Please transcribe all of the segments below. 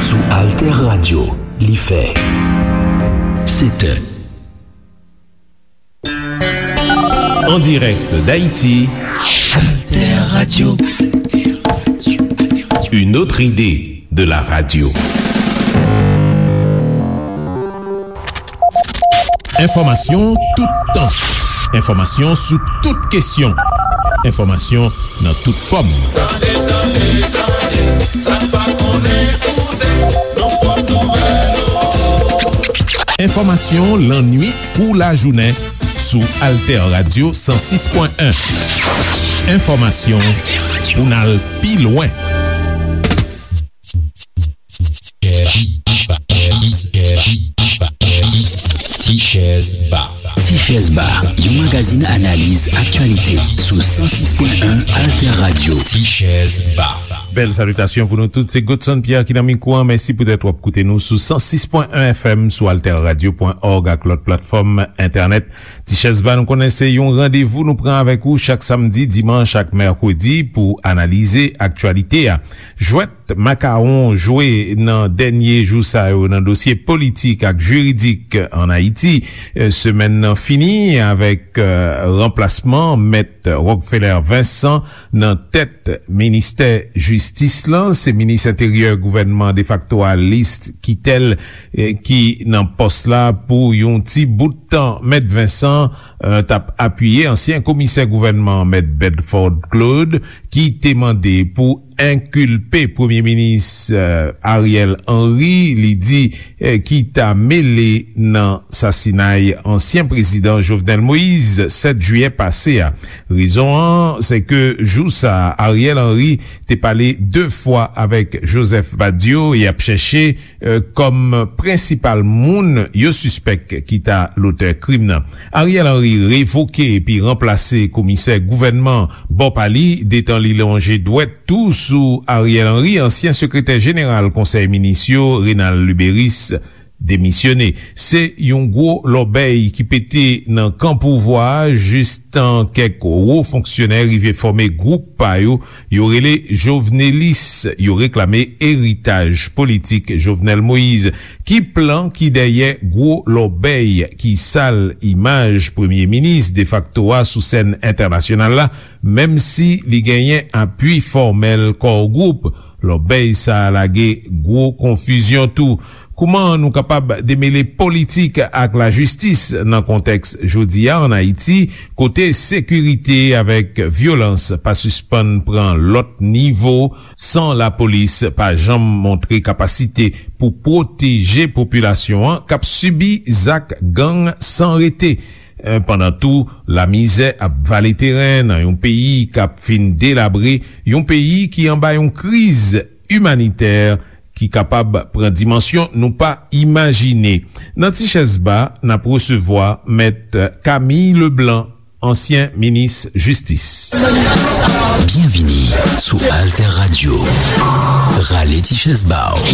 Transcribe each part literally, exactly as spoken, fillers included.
Sou Alter Radio, li fè sèt è. En direct d'Haïti, Alter Radio. Une autre idée de la radio. Enfòmasyon tout tan. Enfòmasyon sou tout kesyon. Enfòmasyon nan tout fòm. Tande, tande, tande, sa n pa konnen koute, nan pòt nouvèl ou. Enfòmasyon lannuit kou lajounen sou Alter Radio san sis pwen en. Enfòmasyon pou n al pi lwen. Tichèz Ba. Tichèz Ba, yon magazin analiz aktyalite sou san sis pwen en Alter Radio. Tichèz Ba. Bèl salitasyon pou nou tout. Se Godson Pierre ki nan mikwo a. Mèsi poutèt w ap koute nou sou san sis pwen en F M, sou alter radio pwen org ak lòt platfòm entènèt. Tichèz Ba, nou konnen se yon randevou nou pran avèk ou chak samdi, dimanch ak mèkredi pou analize aktyalite a. Jwèt makawon jwe nan dènye jou sa yo nan dosye politik ak jiridik ann Ayiti. Eh, semèn nan fini avèk, eh, ranplasman Mèt Rockefeller Vincent nan tèt ministè jistis lan. Se minis enteryè gouvènman defakto a, List Quitel, eh, ki nan pòs la pou yon ti bout tan. Mèt Vincent, eh, t ap apiye ansyen komisè gouvènman, Mèt Bedford Claude, ki te mande pou enkilpe Premye Minis, eh, Ariel Henry, li di, eh, ki ta mele nan sasinay ansyen prezidan Jovenel Moïse, sèt jiyè pase a. Rezon an, se ke jou sa a, Ariel Henry te pale de fwa avèk Joseph Badio e ap chèche, eh, kòm prensipal moun yo sispèk ki ta lotè krim nan. Ariel Henry revoke epi ranplase komisè gouvènman bò pa li, detan li lonje dwèt tou sou Ariel Henry, ansyen sekretè jeneral Konsèy Minis yo, Renald Luberice, demisyone. Se yon gwo lòbèy ki pete nan kan pouvwa a, jistan kèk wo fonksyonè rive fòme gwoup pa yo, yo rele Jovenelis, yo reklame eritaj politik Jovenel Moïse. Ki plan ki dèyè gwo lòbèy ki sal imaj premye minis defakto a sou sèn entènasyonal la, menm si li genyen apui fòmèl Core Group? Lòbèy sa a lage gwo konfizyon tou. Kouman nou kapab demele politik ak lajistis nan kontèks jodi a ann Ayiti, kote sekirite avèk vyolans pa sispann pran lòt nivo, san lapolis pa janm montre kapasite pou pwoteje popilasyon an k ap sibi zak gang san rete? Eh, pandan tou, lamizè ap vale teren nan yon peyi k ap fin delabre, yon peyi ki anba yon kriz imanitè ki kapab pran dimansyon nou pa imajine. Nan Ti Chèz Ba, n ap resevwa Mèt Camille Leblanc, ansyen minis jistis. Byenvini sou Alter Radio. Rale ti chèz ba w.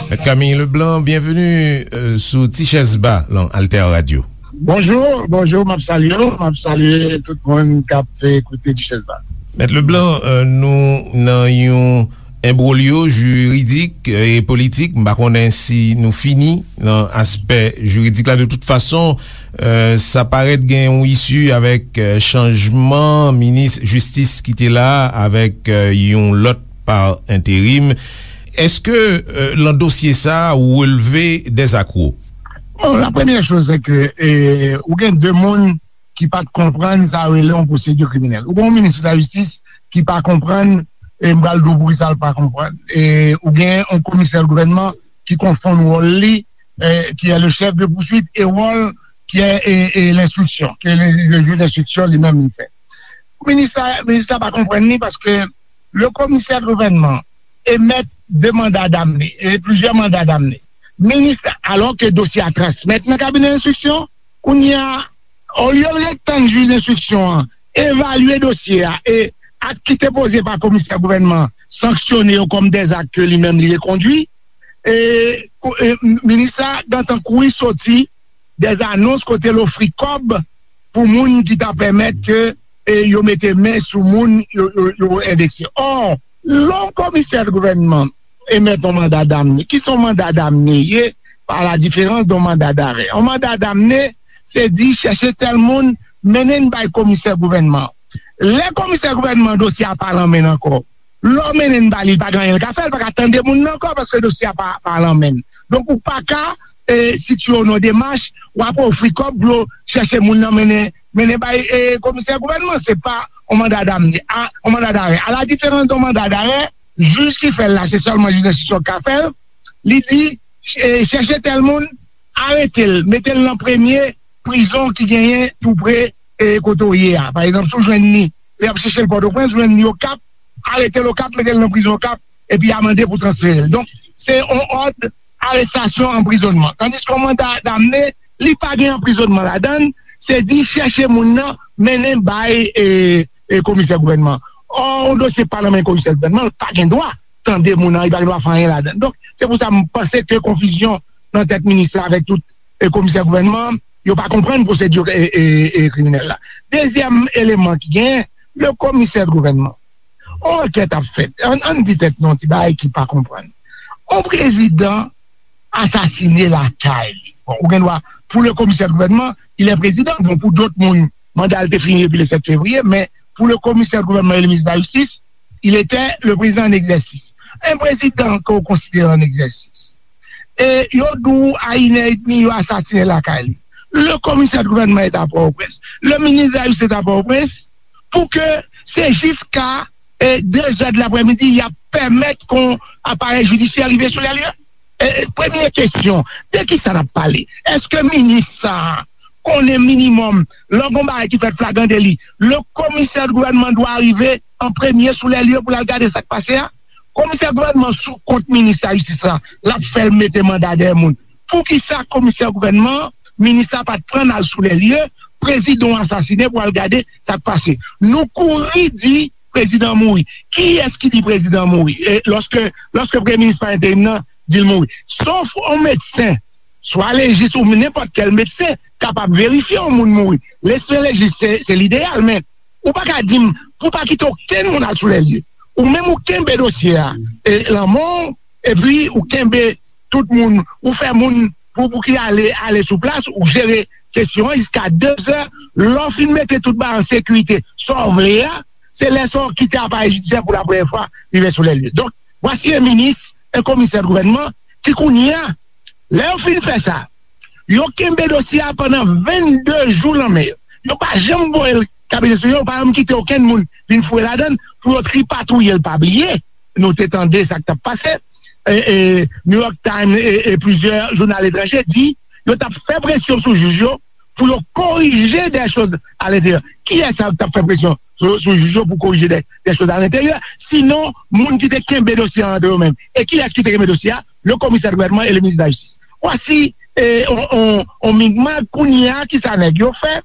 Mèt Camille Leblanc, byenveni, euh, sou Ti Chèz Ba lan Alter Radio. Bonjou, bonjou, m ap salye w, m ap salye tout moun k ap, eh, koute Ti Chèz Ba. Mèt Leblanc, euh, nou nan yon enbwolyo jiridik, eh, e politik. M pa konnen si nou fini nan aspè jiridik la. De tout fason, eh, sa parèt gen yon isi avèk, eh, chanjman minis jistis ki te la a, avèk, eh, yon lòt pa enterim. Èske, eh, lan dosye sa a, ou relve dèzakwo? Bon, la premyè choz, se ke, eh, ou gen de moun ki pa t konprann sa yo rele yon pwosedi kriminèl. Ou gen yon minis lajistis ki pa konprann, e m pral di w poukisa l pa konprann. E ou gen yon komisè gouvènman ki konfonn wòl li, e, qui est le chef de poursuite, e wòl qui est, e, e l'instruction, ke le, le jij enstriksyon li menm li fè. Minis la, minis la pa konprann li paske le komisè gouvènman emèt de manda damne, e plizyè manda damne. Minis la, alò ke dosye a transmèt nan kabinè enstriksyon, kounye a, olye l ret tann jij enstriksyon an, evalye dosye a e ak ki te poze pa komisè gouvènman sanksyone yo kòm dèzak ke li menm li rekondwi. E, ko- e, minis la gentan kouri soti dèzanons kote l ofri kòb pou moun ki ta pèmèt ke e, yo mete men sou moun yo, yo, yo endekse. Ò, lè yon komisè gouvènman emèt yon manda damne, ki se yon manda damne ye, pa la diferans de yon manda darè. Yon manda damne, se di chèche tèl moun, mennen n bay komisè gouvènman. Lè komisè gouvènman dosye a pa lan men l ankò, lè w mennen l ba li, li pa gen anyen l ka fè, li pa ka tande moun nan ankò paske dosye a pa, pa lan men l. Donk, ou pa ka e, sitye w nan demach, w ap ofri kòb pou yo chèche moun nan mennen, mennen bay e, komisè gouvènman. Se pa yon manda damne, a, yon manda darè. A la diferans de yon manda darè, jij ki fè l la, se sèlman jij enstriksyon k ka fè l. Li di, e, chèche tèl moun, arete l, mete l nan premye prizon ki genyen tou pre e, kote w ye a. Pa egzanp, si w jwenn li, lè y ap chèche l Pòtoprens, jwenn li Okap, arete l Okap, mete l nan prizon Okap, epi amande pou transfere l. Donk, se yon òd arestasyon, anprizonnman. Tandiske yon manda damne, li pa gen anprizonnman ladan l, se di chèche moun nan, mennen bay e, e, komisè gouvènman. Ò, yon dosye pa nan men komisè gouvènman, l pa gen dwa tande moun nan, li pa gen dwa fè anyen ladan l. Donk, se pou sa m panse ke konfizyon nan tèt minis la avèk tout e, komisè gouvènman, yo pa konprann pwosedi e, e, e, kriminèl la. Dezyèm eleman ki genyen, le komisè gouvènman. Yon ankèt ap fèt. Ann, ann di tèt nou yon ti bagay ki pa konprann. Yon prezidan asasine lakay li. Bon, ou gen dwa, pou le komisè gouvènman, il est président. Bon, pou dòt moun, manda l te fini depi le sèt fevriye, men pou le komisè gouvènman e le minis de la jistis, il était le président en exercice. Un président que vous considérez en exercice. E yo di w a inè edmi yo asasinen lakay li. Le komisè de gouvènman est à Port-au-Prince. Le ministre de la Justice est à Port-au-Prince. Pou ke se jiska e, de zè de laprèmidi, y ap pèmèt kon aparèy jidisyè rive sou lè lye. E, e, premye kesyon, de ki sa n ap pale? Èske minis sa a konnen minimòm, lè gon bagay ki fèt flagran deli, le komisè de gouvènman dwa rive an premye sou lè lye pou l al gade sa k pase a? Komisè gouvènman sou kont minis la jistis la, l ap fè l mete manda dèyè moun. Poukisa komisè gouvènman, minis la pa t pran n al sou lè lye, prezidan w asasinen pou al gade sa k pase? Nou kouri di prezidan mouri. Kiyès ki di prezidan mouri? E lòske, lòske premye minis pa enterim nan di l mouri. Sof yon medsen, swa lejis ou nenpòt kèl medsen, kapab verifye yon moun mouri. Medsen lejis se, se lideyal, men ou pa ka di m pou pa kite okenn moun al sou lè lye. Ou menm ou kenbe dosye a, e, lanmò w, epi ou kenbe tout moun, ou fè moun pou, pou ki ale, ale sou plas, ou jere kesyon an jiska de zè, lè w fin mete tout bagay an sekirite, sa w vle a, se lè sa w kite aparèy jidisyè pou la premyè fwa rive sou lè lye. Donk, vwasi en minis, en komisè de gouvènman, ki kounye a, lè yo fin fè sa, yo kenbe dosye a pandan vennde jou nan men yo. Yo pa janm voye l kabinè sou yo, yo pa janm kite okenn moun vin fouye ladan l pou yo tripatouye l. Pa bliye, nou te tande sa k t ap pase. E, e, New York Times e, e plizyè jounal etranje di yo t ap fè presyon sou jij yo pou yo korije dè choz alenteryè. Kiyès sa k t ap fè presyon sou, sou jij yo pou korije dè, dè choz alenteryè? Sinon, moun ki te kenbe dosye a antre yo menm. E kiyès ki te kenbe dosye a? Le komisè de gouvènman e le minis de la jistis. Vwasi e, on, on, on migmak kounye a, ki sa nèg yo fè?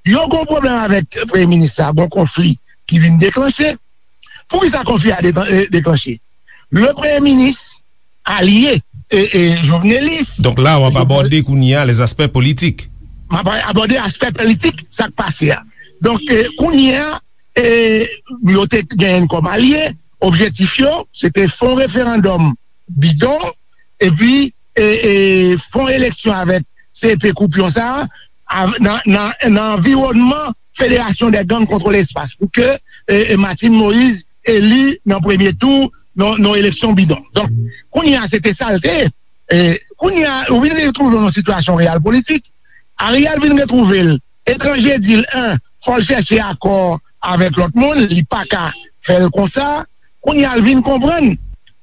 Yo gon pwoblèm avèk premye minis la, gon konfli ki vin deklanche. Poukisa konfli a de- e, deklanche? Le premye minis alye e, e, Jovenelis. Donk la, w ap abòde kounye a les aspects politiques. M ap abòde aspè politik sa k pase a. Donk, e, kounye a, e, yo te genyen kòm alye, objektif yo, se te fè yon referandòm bidon, epi e, e, fè yon eleksyon avèk C P koupyon sa a, nan, nan, nan anviwònman Federasyon dè Gang Kontrole Espas, pou ke e, e, Martine Moïse eli nan premye tou nan, nan eleksyon bidon. Donk, kounye a, se te sa l te ye. E, kounye a, ou vin retwouve w nan sitiyasyon reyal politik. Ariel vin retwouve l etranje, di l, en, fò l chèche akò avèk lòt moun, li pa ka fè l konsa. Kounye a, l vin konprann,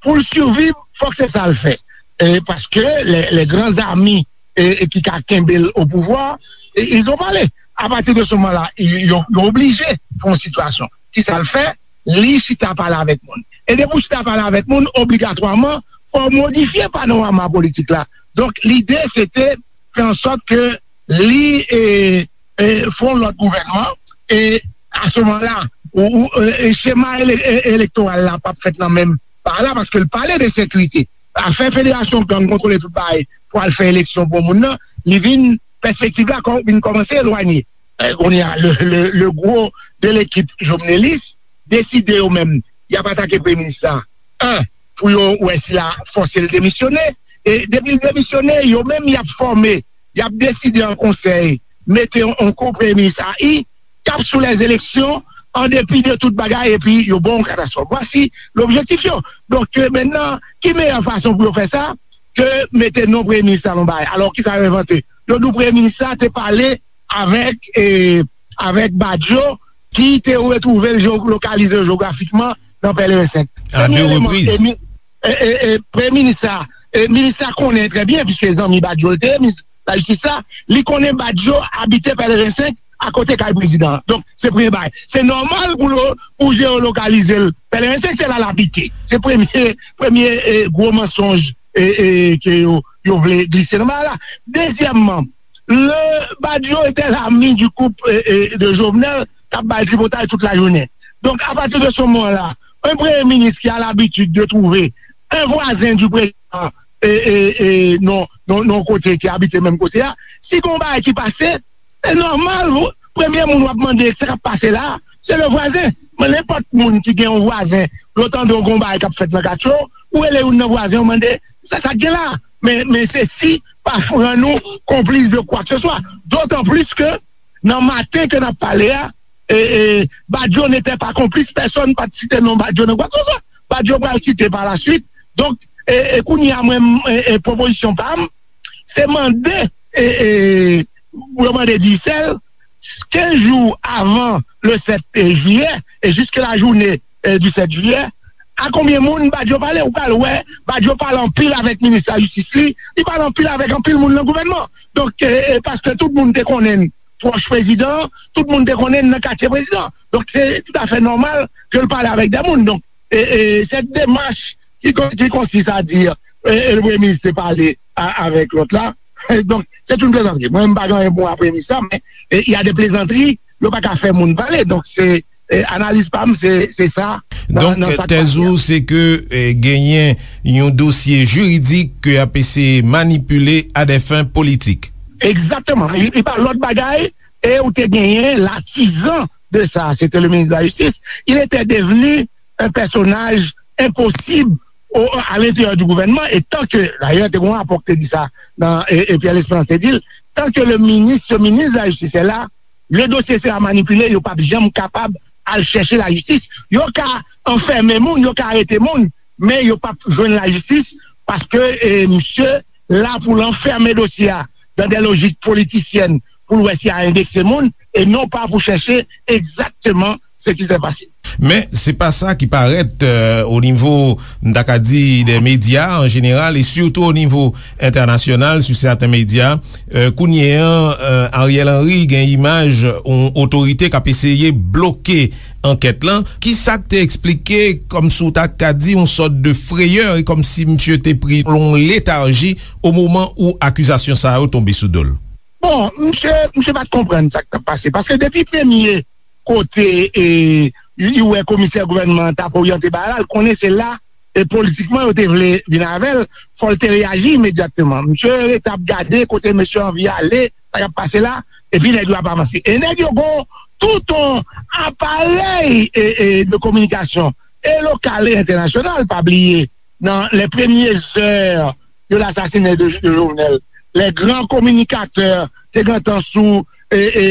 pou l siviv, fòk se sa l fè. E, paske les, les grands amis e, e ki ka kenbe l o pouvwa, e, ils ont parlé. Apati de se moman la, yo, yo oblije fè yon sitiyasyon. Ki sa l fè? Li chita pale avèk moun. E depi w chita pale avèk moun, obligatwaman, fò w modifye panorama politik la. Donk, lide, se te fè an sòt ke li e, e, fè yon lòt gouvènman, e a se moman la, ou, ou, e, e, chema ele- e- elektoral la p ap fèt nan menm pa la, paske l pale de sekirite. Afè federasyon gang kontwole tout bagay pou al fè eleksyon pou moun nan, li vin, pèspektiv la kò- vin kòmanse elwanye. E, kounye a, le, le, le gwo de lekip jovnelis deside yo menm, y ap atake premye minis la. En, pou yo wè si l a fòse l demisyone. E depi l demisyone, yo menm y ap fòme, y ap deside an konsèy, mete yon, yon ko premye minis a i, k ap sou lèzeleksyon, an depi de tout bagay, epi yo ba w yon katastwòf. Vwasi lobjektif yo. Donk, e, mentnan, ki meyè fason pou yo fè sa ke mete non premye minis la nan bagay? Alò, kisa yo envante? Yo di w premye minis la te pale avèk, e, avèk Badio, ki te retwouve l, lokalize l jewografikman nan Pèleren senk. A de repriz. E, e, e, premye minis la, e, minis la konnen trè byen, piske zanmi Badio l te ye, minis lajistis la, li konnen Badio abite Pèleren senk, akote kay prezidan an. Donk, se premye bagay. Se nòmal pou lo- pou jewolokalize l. Pèleren senk, se la l abite. Se premye, premye, e, gwo mansonj, e, e, ke yo, yo vle glise nan bagay la. Dezyèmman, le Badio était l'ami du couple, e, e, de Jovenel, k ap bay tripotay tout lajounen. Donk, apati de se moman la, un premye minis ki a labitid de twouve un vwazen di prezidan, e, e, e, non, non, non, kote ki abite menm kote a, si gon bagay ki pase, se nòmal, premye moun w ap mande sa k ap pase la, se le vwazen. Men nenpòt moun ki gen yon vwazen, lè w tande yon gon bagay k ap fèt nan katye w, ou rele youn nan vwazen, ou mande sa, sa k gen la. Men, men se si pa rann ou konplis de kwa ke se swa. Dotan plis ke nan maten ke n ap pale a, e, e, Badio n'était pas complice, pèsonn pa t site non Badio nan kwa ke se swa. Badio pral site pa la swit. Donk, e, e, kounye a mwen, e, e, pwopozisyon pa m, se mande, e, e, pou yo mande Digicel, kenz jou avan le sèt jiyè, e jiske la jounen, e, du sèt jiyè, a konbyen moun Badio pale? Ou pral wè, Badio pale anpil avèk minis lajistis li, li pale anpil avèk anpil moun nan gouvènman. Donk, e, e, paske tout moun te konnen l pwòch prezidan, tout moun te konnen l nan katye prezidan. Donk, se toutafè nòmal ke l pale avèk de moun. Donk, e, e, cette démarche qui, con- qui consiste à dire, e, e, le premye minis te pale a- avèk lòt la. Donk, c'est une plaisanterie. Mwen, m pa gen anyen pou mwen a premye minis la, men, e, il y a des plaisanteries, yo pa ka fè moun pale. Donk, se, e, analiz pa m, se, se sa. Nan- Donk, nan sa k tèz pase a. Ou, se ke, e, genyen yon dosye jiridik ke y ap eseye manipile à des fins politiques. Egzakteman. Li, li pa lòt bagay, e ou te genyen l'artisan de ça, c'était le ministre de la Justice. Il était devenu un personnage impossible au- à l'intérieur du gouvernement. Et tant que, d'ailleurs, te gon rapò ki te di sa, nan, e, e Pierre Lespérance te di l, tant que le ministre, ce ministre de la Justice est là, le dossier sera manipulé, yo p ap janm kapab al chèche lajistis. Yo ka anfèmen moun, yo ka arete moun, men yo p ap jwenn lajistis, paske, e, misye la pou l anfèmen dosye a dans des logiques politiciennes pou l wè si a endekse moun, e non pa pou chèche egzakteman ce qui s'est passé. Men se pa sa ki parèt, euh, o nivo, m ta ka di, de medya an jeneral, e sitou o nivo entènasyonal, sou sèten medya. Euh, kounye an, euh, Ariel Henry gen imaj yon otorite k ap eseye bloke ankèt lan. Ki sa k te eksplike, kòmsi w ta ka di, yon sòt de freyè, e kòmsi misye te pri yon letarji o moman ou akizasyon sa yo tonbe sou do l? Bon, misye, misye pa t konprann sa k t ap pase. Paske depi premye kote, e, li wè komisè gouvènman an t ap oryante bagay la, l konnen se la, e, politikman yo te vle vin avè l, fò l te reyaji imedyatman. Misye rete ap gade kote mesye anvi ale, sa k ap pase la, epi nèg yo ap avanse. E nèg yo gon tout yon aparèy, e, e, de kominikasyon, e lokal e entènasyonal, pa bliye, dans les premières heures de l'assassinat de, de Jovenel, les grands communicateurs te gentan sou, e, e,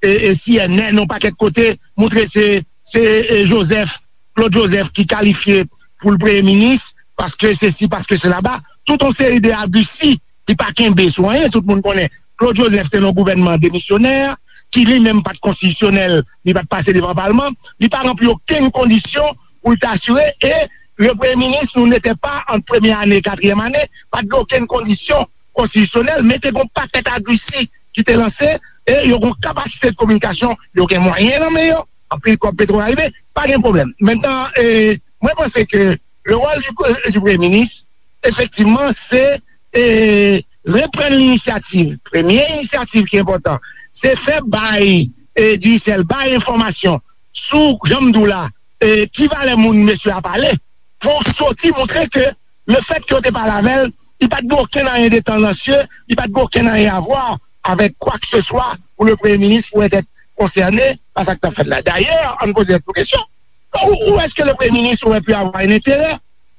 e, e C N N, yon pakèt kote, montre se, se, e, Joseph, Claude Joseph ki kalifye pou l premye minis, paske sesi, paske sela. Tout yon seri de agrisi, li pa kenbe sou anyen, tout moun konnen Claude Joseph te nan yon gouvènman demisyonè, ki li menm pa t konstitisyonèl, li pa t pase devan palman, li pa ranpli okenn kondisyon pou l te asire, e le premye minis, nou n'était pas an premye ane, katriyèm ane, pa t gen okenn kondisyon konstitisyonèl, men te gen yon pakèt agrisi ki te lanse, e yo gen yon kapasite de kominikasyon, yo gen mwayen nan men yo, anpil kòb petwo arive, pa gen pwoblèm. Mentnan, e, mwen panse ke le rôle du, du premye minis, efektivman, se, e, reprann linisyativ. Premye inisyativ ki enpòtan, se fè bay e, Digicel bay enfòmasyon sou, jan m di w la, e, ki valè moun mesye a pale, pou soti montre ke lefètke yo te pale avè l, li pa t gen okenn anyen de tandansye, li pa t gen okenn anyen a vwa avèk kwa ke se swa pou le premye minis pou èt konsène pa sa k t ap fèt la. Dayè, ann poze tèt nou kesyon. Où, où est-ce que le Premier ministre aurait pu avoir un intérêt?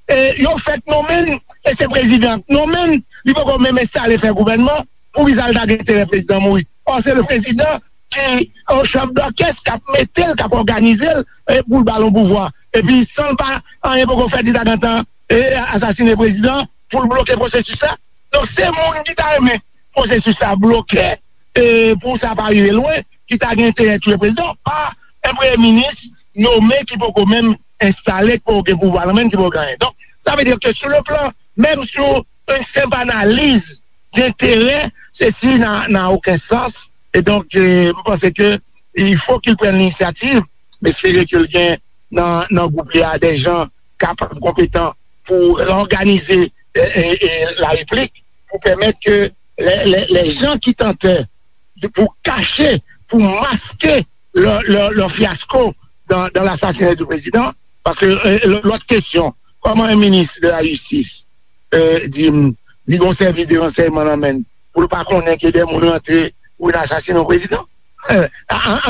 E, yo fèk nonmen l, e se prezidan k nonmen l, li poko menm enstale fè gouvènman, poukisa l ta gen enterè prezidan mouri? Or, se le prezidan ki, o chèf dòkès, k ap mete l, k ap òganize l, e, pou l ba l yon pouvwa. Epi, san l pa, anyen poko fèt, li ta gentan, e, asasine prezidan, pou l bloke pwosesis la. Donk, se moun ki ta renmen pwosesis la bloke, e, pou sa pa rive lwen, ki ta gen enterè touye prezidan, pa yon premye minis nonmen ki poko menm enstale, ki poko gen pouvwa nan men l, ki poko gen anyen. Donk, sa vle di ke sou le plan, menm sou yon senp analiz denterè, sesi n'a, n'a aucun sens. E donk, e, m panse ke il faut qu'il prenne l'initiative. M espere ke l gen nan, nan gwoup li a de jan kapab, konpetan pou reòganize, e, e, e, la replik, pou pèmèt ke les, les, les gens qui tentaient de, pour cacher, pour masquer leur, leur, leur fiasco dans, dans l'assassinat du président. Paske, e, lò-, lòt kesyon, kòman yon minis de la jistis, e, di m, li gon sèvis de ransèyman nan men l, pou l pa konnen ke de moun rantre pou vin asasinen yon prezidan? Ann,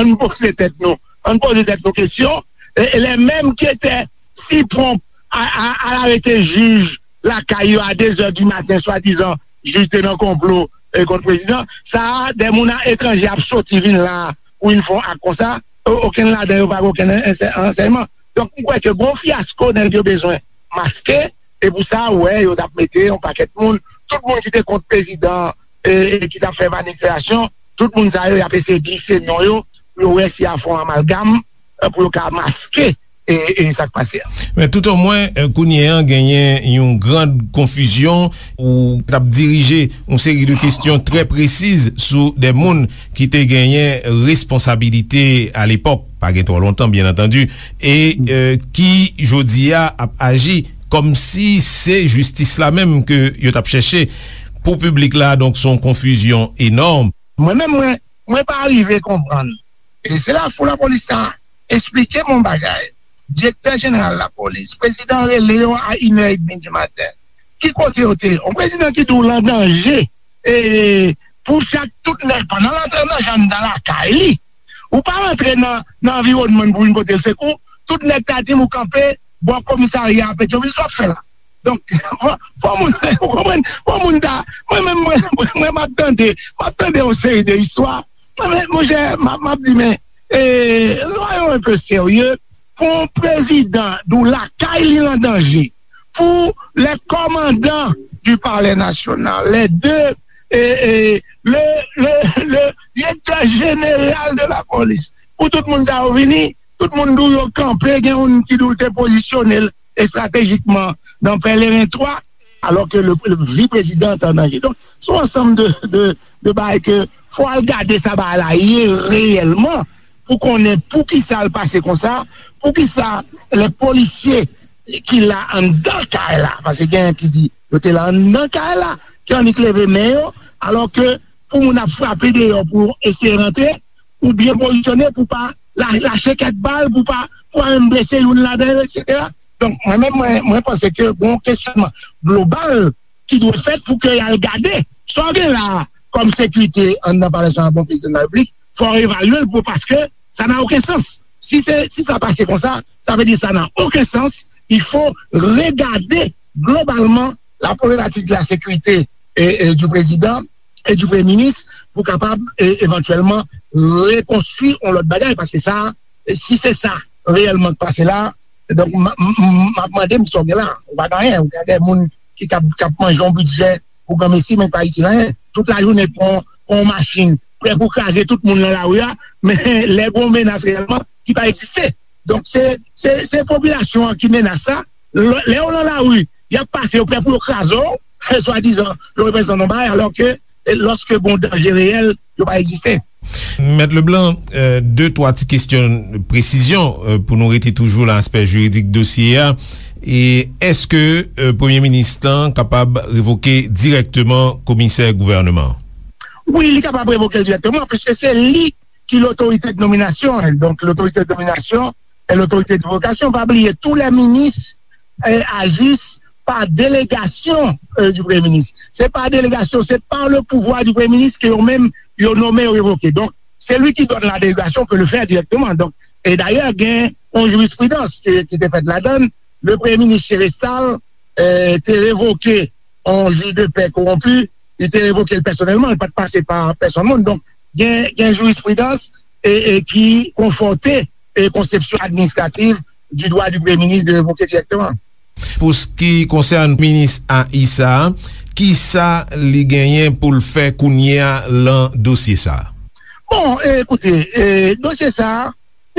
ann poze tèt nou, ann poze tèt nou kesyon. E, e les mêmes qui étaient si prompts à, à, à arrêter jij lakay yo a de zè di maten, swadizan jij te nan konplo, e, kont prezidan. Sa a, de moun a etranje ap soti vin la pou vin fè yon ak konsa. O-, okenn ladan yo pa gen okenn ansè-, ansèyman. Donk, m kwè ke gon fyasko nèg yo bezwen maske, e pou sa, ou wè, yo t ap mete yon pakèt moun, tout moun ki te kont prezidan, e, e ki t ap fè manifestasyon, tout moun sa yo, y ap eseye glise non yo, pou yo wè si y a fè yon amalgam, e, pou yo ka maske, e, e sa k pase a. Men toutomwen, e, kounye a, genyen yon gran konfizyon ou t ap dirije yon seri de kesyon trè presiz sou de moun ki te genyen responsabilite alepòk, pa gen twò lontan, byen antandi, e, e, ki, jodi a, ap aji kòmsi se jistis la menm ke yo t ap chèche. Pou piblik la, donk, se yon konfizyon enòm. Mwen menm, mwen, mwen pa rive konprann. E se la fou lapolis sa esplike m yon bagay. Direktè jeneral lapolis, prezidan rele yo a inè edmi di maten. Ki kote yo te ye? Yon prezidan ki di w l an danje, e, pou chak tout nèg, pandan l antre nan janm nan lakay li, ou pa rantre nan, nan anviwònman pou vin pote l sekou, tout nèg ta di m ou kanpe bò komisarya a Petyonvil, sa w ap fè la? Donk, fò, fò moun, ou konprann? Fò moun ta, mwen menm, mwen, mwen, mwen, m ap tande, m ap tande yon seri de istwa. Mwen, mwen, monchè, m ap, m ap di, men, e, soyons un peu sérieux, pou yon prezidan di w lakay li an danje, pou les commandants du Palais National, les deux, e, e, le, le, le directeur général de la police, pou tout moun sa yo vini, tout moun di w yo kanpe, gen youn ki di w te pozisyone l estratejikman nan Pèleren twa, alò ke le, le vi prezidan an danje. Donk, se yon ansanm de, de, de bagay ke fò al gade sa bagay la ye reyèlman, pou konnen poukisa l pase konsa, poukisa lè polisye ki la anndan kay la, paske gen ki di yo te la anndan kay la, ki annik leve men yo, alò ke pou moun ap frape deyò pou eseye rantre, ou byen pozisyone pou pa la-, lache kèk bal, pou pa, pou pa menm blese youn ladan yo, etsetera. Donk, mwen menm, mwen, mwen panse ke gon kesyònman global ki dwe fèt pou ke y al gade sa w gen la a kòm sekirite anndan Palè Nasyonal, bon, prezidan de la Repiblik, fò w evalye l pou, paske sa n'a aucun sens. Si se, si sa pase konsa, sa vle di sa n'a aucun sens. Il faut regarder globalement la problématique de la sécurité et, et du président et du premye minis pou kapab, e, evantyèlman rekonstwi yon lòt bagay, paske sa, si se sa reyèlman k pase la, donk, m, m, m, m ap mande m sa w gen la. Ou pa gen anyen, ou gen de moun ki k ap, k ap manje yon bidjè pou granmesi, men pa itil anyen. Tout lajounen pran, pran yon machin, prè pou kraze tout moun nan lari a, men lè gen yon menas reyèlman ki pa egziste. Donk, se, se, se popilasyon an ki menas la. Lè, lè yo nan lari, y ap pase, yo prè pou yo kraze w, swadizan, yo reprezante yon bagay, alò ke, e, lòske gen yon danje reyèl, yo pa egziste. Mèt Leblanc, e, de, twa ti kesyon presizyon, e, pou nou rete toujou nan aspè jiridik dosye a. E èske, e, premye minis lan kapab revoke dirèkteman komisè gouvènman an? Wi, li kapab revoke l dirèkteman, piske se li ki lotorite de nominasyon. Donk, lotorite de nominasyon e lotorite de revokasyon. Pa bliye, tou lè minis eh, agissent par délégation eh, du Premier ministre. Se pa delegasyon, se pa le pouvoir du Premier ministre ke yo menm yo nome, yo revoke. Donk, celui qui donne la délégation peut le faire directement. Donk, e dayè, gen yon jirisprudans ki, ki te fèt ladan l. Le Premye Minis Chérestal eh, te revoke yon jij de pè kowonpi, li te revoke l pèsonèlman, li pa t pase pa pèsonn moun. Donk, gen, gen jirisprudans e, e ki konfòte e konsepsyon administrativ du droit du Premier ministre de révoquer directement. Pou s ki konsène minis A I sa a, kisa li genyen pou l fè kounye a lan dosye sa a? Bon, eh, ekoute, eh, dosye sa a,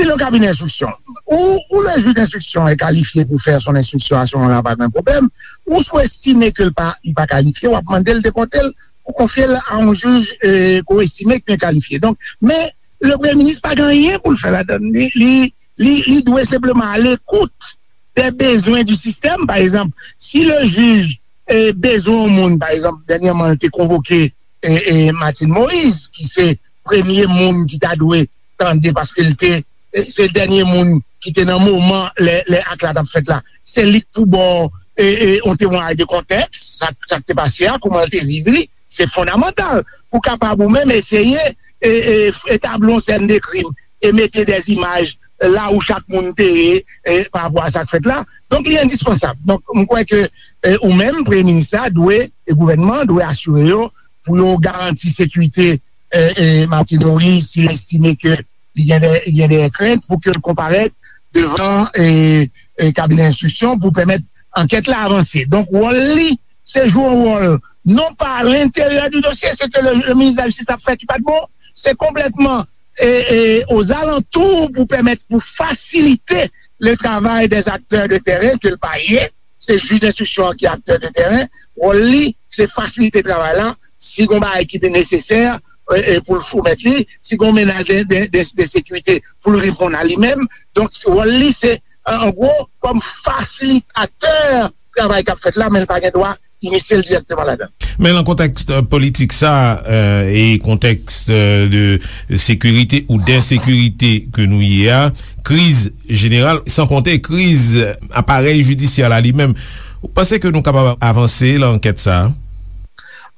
li nan kabinè enstriksyon. Ou, ou le jij enstriksyon e kalifye pou fè son enstriksyon a se moman la, pa gen pwoblèm. Ou si w estime ke l pa, li pa kalifye, w ap mande l depòte l, ou konfye l a yon jij eh, ke w estime ki byen kalifye. Donk, men le premye minis pa gen anyen pou l fè ladan l. Li, li, li, li dwe senpleman alekout des besoins du système. Pa egzanp, si le jij eh, bezwen yon moun, pa egzanp, dènyèman, l te konvoke eh, eh, Martine Moïse, ki se premye moun ki ta dwe tande, paske l te eh, se dènye moun ki te nan moman lè, lè ak la t ap fèt la. Se li k pou ba w eh, eh, yon temwayaj de kontèks, sa, sa k te pase a, kouman l te viv li. Se fondamantal pou kapab ou menm eseye eh, eh, etabli yon sèn de krim e mete des images la où chak moun te ye eh, pa rapò a sa k fèt la. Donk, li endispansab. Donk, m kwè ke eh, ou menm, premye minis la, dwe, e gouvènman an dwe asire yo pou yo garanti sekirite eh, eh, Martine Moïse si l estime ke li gen de, gen de krent pou ke l konparèt devan eh, eh, kabinè enstriksyon pou pèmèt ankèt la avanse. Donk, wòl li, se jwe yon wòl non pa à l'intérieur du dossier, se ke le, le ministre de la Justice ap fè ki pa t bon, se konplètman eh, eh, aux alentours pou pèmèt, pou fasilite le travail des acteurs de terrain ke l pa ye. Se jij enstriksyon an ki aktè de teren. Wòl li, se fasilite travay la. Si gon bagay ki nesesè eh, eh, pou l soumèt li, si gon menaj de, de, de, de sekirite pou l reponn a li menm. Donk, wòl li, se, an gwo, kòm fasilitatè travay k ap fèt la, men l pa gen dwa inisye l dirèkteman ladan l. Men lan kontèks eh, politik sa eh, e kontèks eh, de sekirite ou densekirite ke nou ye a, kriz jeneral, san konte kriz aparèy jidisyè la li menm, ou panse ke nou kapab avanse lan ankèt sa a?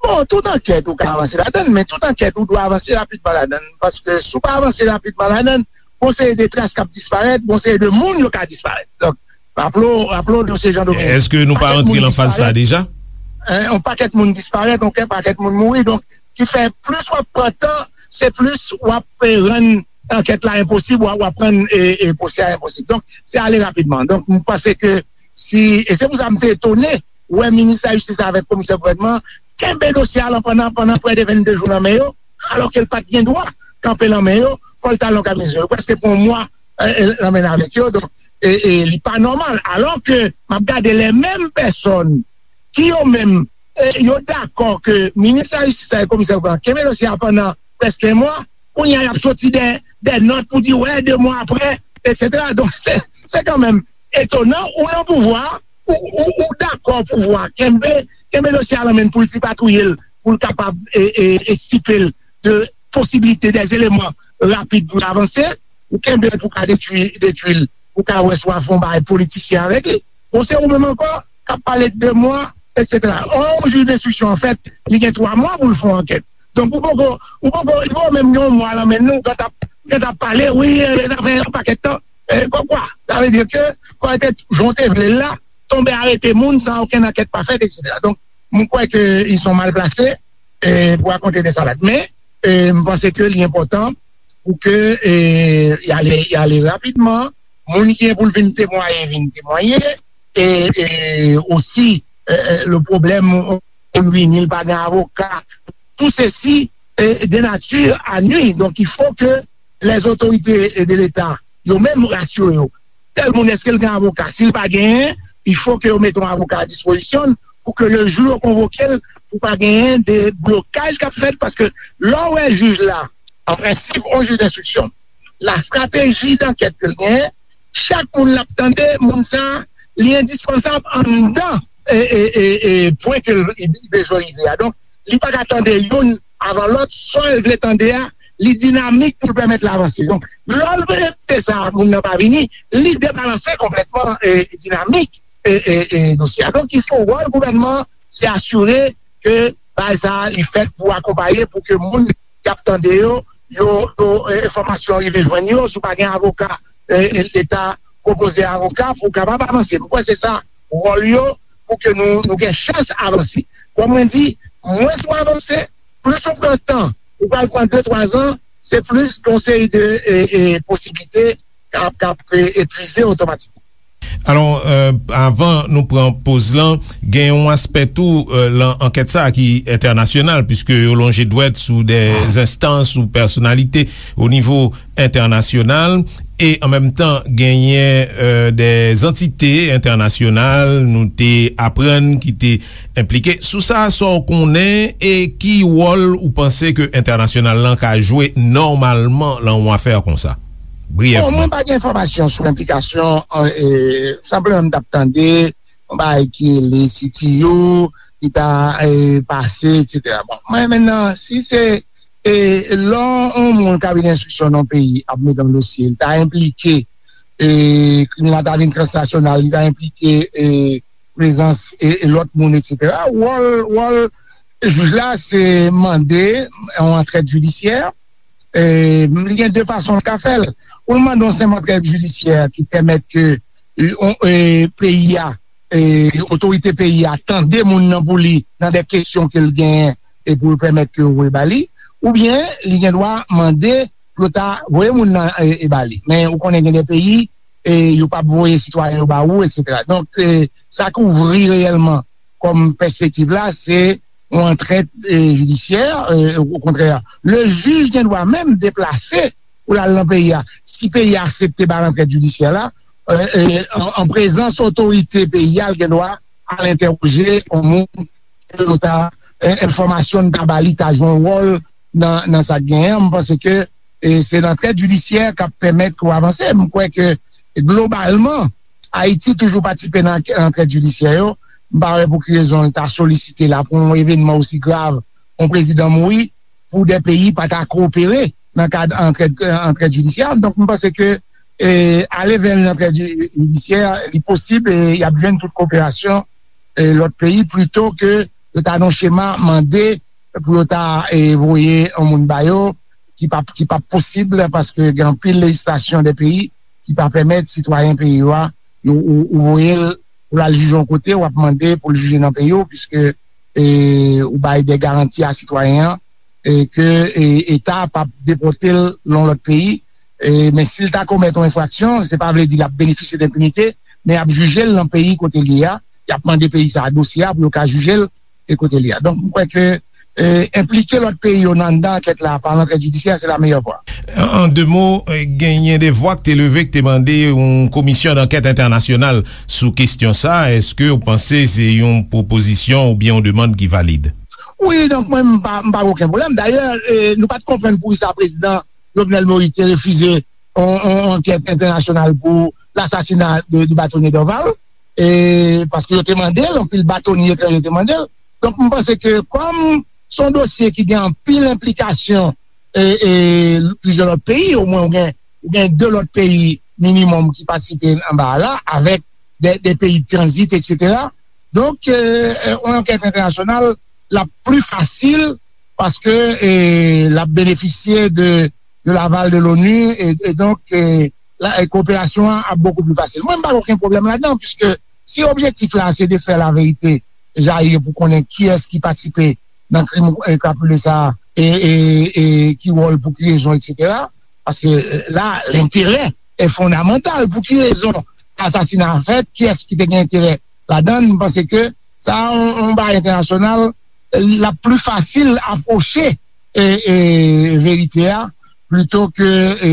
Bon, tout ankèt ou ka avanse ladan l, men tout ankèt ou dwe avanse rapidman ladan l, paske si w pa avanse rapidman ladan l, gon seri de tras k ap disparèt, gon seri de moun yo ka disparèt. Donk, raple w, raple w dosye Jean Dominique. Èske nou pa antre lan faz sa a deja? Yon pakèt moun disparèt, yon pakèt moun mouri. Donk, ki fè plis w ap pran tan, se plis w ap eh, rann ankèt la enposib, w ap, w ap rann eh, eh, pwosè a enposib. Donk, se ale rapidman. Donk, m panse ke si, e se pou sa m te etone wè minis lajistis la avèk komisè gouvènman kenbe dosye a lan pandan, pandan prè de vennde jou nan men yo, alòske l pa t gen dwa kanpe lan men yo, fò l t al nan kabinè. Yo prèske pran yon mwa eh, eh, lan men avèk yo. Donk, eh, eh, li pa nòmal. Alòske m ap gade lè menm pèsòn ki yo menm eh, yo dakò ke minis lajistis la e komisè gouvènman kenbe dosye a pandan prèske yon mwa, kounye a y ap soti de, de nòt pou di wè, de mwa apre, etsetera. Donk, se, se kanmenm etonan, ou nan pouvwa, ou, ou, ou dakò pouvwa kenbe, kenbe dosye a lan men l pou l tripatouye l, pou l kapab e, e, estipe l de posiblite, de eleman rapid pou l avanse, ou kenbe l pou ka detwi, detwi l, pou ka wè si w a fè yon bagay politisyen avèk li. Bon, se ou menm ankò k ap pale de mwa, etsetera. Ò, yon jij denstriksyon, anfèt, li gen twa mwa pou l fè yon ankèt. Donk, ou poko, ou poko, li poko menm gen yon mwa lan men nou, ou gentan ap, ou gentan ap pale, wi, eh, sa fè yon pakèt tan. Eh, kòmkwa, sa vle di ke, kòm te, jan w te vle l la, tonbe arete moun san okenn ankèt pa fèt, etsetera. Donk, mwen kwè ke ils sont mal placés eh, pou rakonte de salad. Men, eh, m panse ke li enpòtan pou ke eh, y ale, y ale rapidman. Moun ki gen pou l vin temwaye, vin temwaye. E, e osi, eh, eh, le pwoblèm, on, on, ni l pa gen avoka. Tout ceci est de nature à nuire. Donc, il faut que les autorités de l'État, yo menm, rasire yo. Tèl moun, èske l gen avoka? Si l pa genyen, il faut que yo mete yon avoka a dispozisyon l pou ke le jou yo konvoke l, pou pa genyen de blokaj k ap fèt, paske lè w wè jij la, an prensip, yon jij denstriksyon, la strateji dankèt ke l genyen, chak moun l ap tande, moun sa, li endispansab anndan e, e, e, e pwen ke l, li bezwen rive a. Donk, li pa ka tande youn avan lòt, sa l vle tande a, li dinamik pou l pèmèt l avanse. Donk, lè l repete sa, moun nan pa vini, li debalanse konplètman e, dinamik e, e, e dosye a. Donk, ki fè wòl gouvènman an, se asire ke bagay sa a, li fèt pou akonpaye, pou ke moun k ap tande yo, yo, yo e, enfòmasyon rive jwenn yo, si w pa gen avoka, e, e, Leta pwopoze avoka pou w kapab avanse. M kwè se sa wòl yo, pou ke nou, nou gen chans avanse. Kòm mwen di, mwens ou avanse, plis ou pran tan, ou pral pran de, twa zan, se plis gen yon seri de e, e, posiblite k ap, k ap e, etwize otomatikman. Alò, avan nou pran poz lan, gen yon aspè tou lan ankèt sa a ki entènasyonal, piske yo lonje dwèt sou de enstans ou pèsonalite o nivo entènasyonal, e an menm tan genyen de zantite entènasyonal nou te aprann ki te enplike. Sou sa, sa w konnen e ki wòl ou panse ke entènasyonal lan ka jwe nòmalman lan yon afè konsa? Briyèvman. Bon, mwen pa gen enfòmasyon sou enplikasyon, e, senpleman m t ap tande yon bagay ki rele C T U ki ta e, pase, etsetera. Bon, mwen menm nan, si se e, lè yon moun kabinè enstriksyon nan yon peyi ap mete yon dosye, li ta enplike e, krim la ta vin transnasyonal, li ta enplike e, prezans e, e lòt moun, etsetera. Wòl, wòl jij la, se mande yon antrèd jidisyè, e, li gen de fason l ka fè l. Ou l mande yon senp antrèd jidisyè ki pèmèt ke e, on, e, peyi a, e, otorite peyi a tande moun nan pou li nan de kesyon ke l genyen e pou l pèmèt ke yo voye ba li, oubyen li gen dwa mande pou yo ta voye moun nan e, e ba li. Men ou konnen gen de peyi e yo p ap voye sitwayen yo ba ou, etsetera. Donk, e, sa k ouvri reyèlman kòm pèspektiv la, se yon antrèd e, jidisyè, e, okontrè, le jij gen dwa menm deplase pou l al nan peyi a. Si peyi a aksepte ba l antrèd jidisyè la, e, e, an, an prezans otorite peyi a, l gen dwa al entèwoje yon moun ke yo ta, e, enfòmasyon n ta ba li ta jwe yon wòl nan, nan sa k genyen an. M panse ke e, se antrèd jidisyè k ap pèmèt ke w avanse. M kwè ke globalman, Ayiti toujou patisipe nan antrèd jidisyè yo. M pa wè pou ki rezon l ta solisite la pou yon evènman osi grav, yon prezidan mouri, pou de peyi pa ta kowopere nan kad antrèd, antrèd jidisyè. Donk, m panse ke e, ale vè yon antrèd jidisyè, li posib e y ap jwenn tout koperasyon e, lòt peyi plito ke yo ta nan chema mande pou yo ta e, voye yon moun ba yo ki p ap, ki p ap posib paske gen anpil lejislasyon de peyi ki pa pèmèt sitwayen peyi yo a, yo, ou, ou voye l pou l al jije yon kote, w ap mande pou l jije nan peyi w, piske e, ou bay de garanti a sitwayen an e, ke e, Eta p ap depòte l nan yon lòt peyi. E, men si l ta komèt yon enfraksyon, se pa vle di l ap benefisye d enpinite, men y ap jije l nan peyi kote l ye a, y ap mande peyi sa a dosye a pou yo ka jije l e kote l ye a. Donk, m kwè ke e, enplike lòt peyi yo nan anndan ankèt la pa antrèd jidisyè, se la meyè vwa. An de mo, genyen de vwa k te leve k te mande yon komisyon dankèt entènasyonal sou kesyon sa. Èske w panse se yon pwopozisyon oubyen yon demann ki valid? Wi, donk mwen, m pa, m pa gen okenn pwoblèm. Dayè, e, nou pa t konprann poukisa prezidan Jovenel Moïse te refize yon, yon ankèt entènasyonal pou lasasina de, de batonye Dorval, e, paske yo te mande l, anpil batonye etranje te mande l. Donk, m panse ke kòm se yon dosye ki gen anpil enplikasyon e, e plizyè lòt peyi, omwen ou gen, ou gen de lòt peyi minimòm ki patisipe anba a la, avèk de, de peyi tranzit, etsetera. Donk, e, e, yon ankèt entènasyonal, l ap pli fasil paske e, l ap benefisye de, de laval de l'ONU, e, e donk, e, la, e, koperasyon an ap bokou pli fasil. Mwen, m pa gen okenn pwoblèm ladan, piske si objektif la se de fè laverite jayi pou konnen kiyès ki patisipe nan krim e, krapile sa a, e, e, e ki wòl, pou ki rezon, etsetera. Paske e, la, lenterè e fondamantal. Pou ki rezon asasina a fèt? Kiyès ki te gen enterè ladan l? M panse ke sa a, yon, yon bagay entènasyonal, l ap pli fasil apwoche e, e, verite a, plito ke e,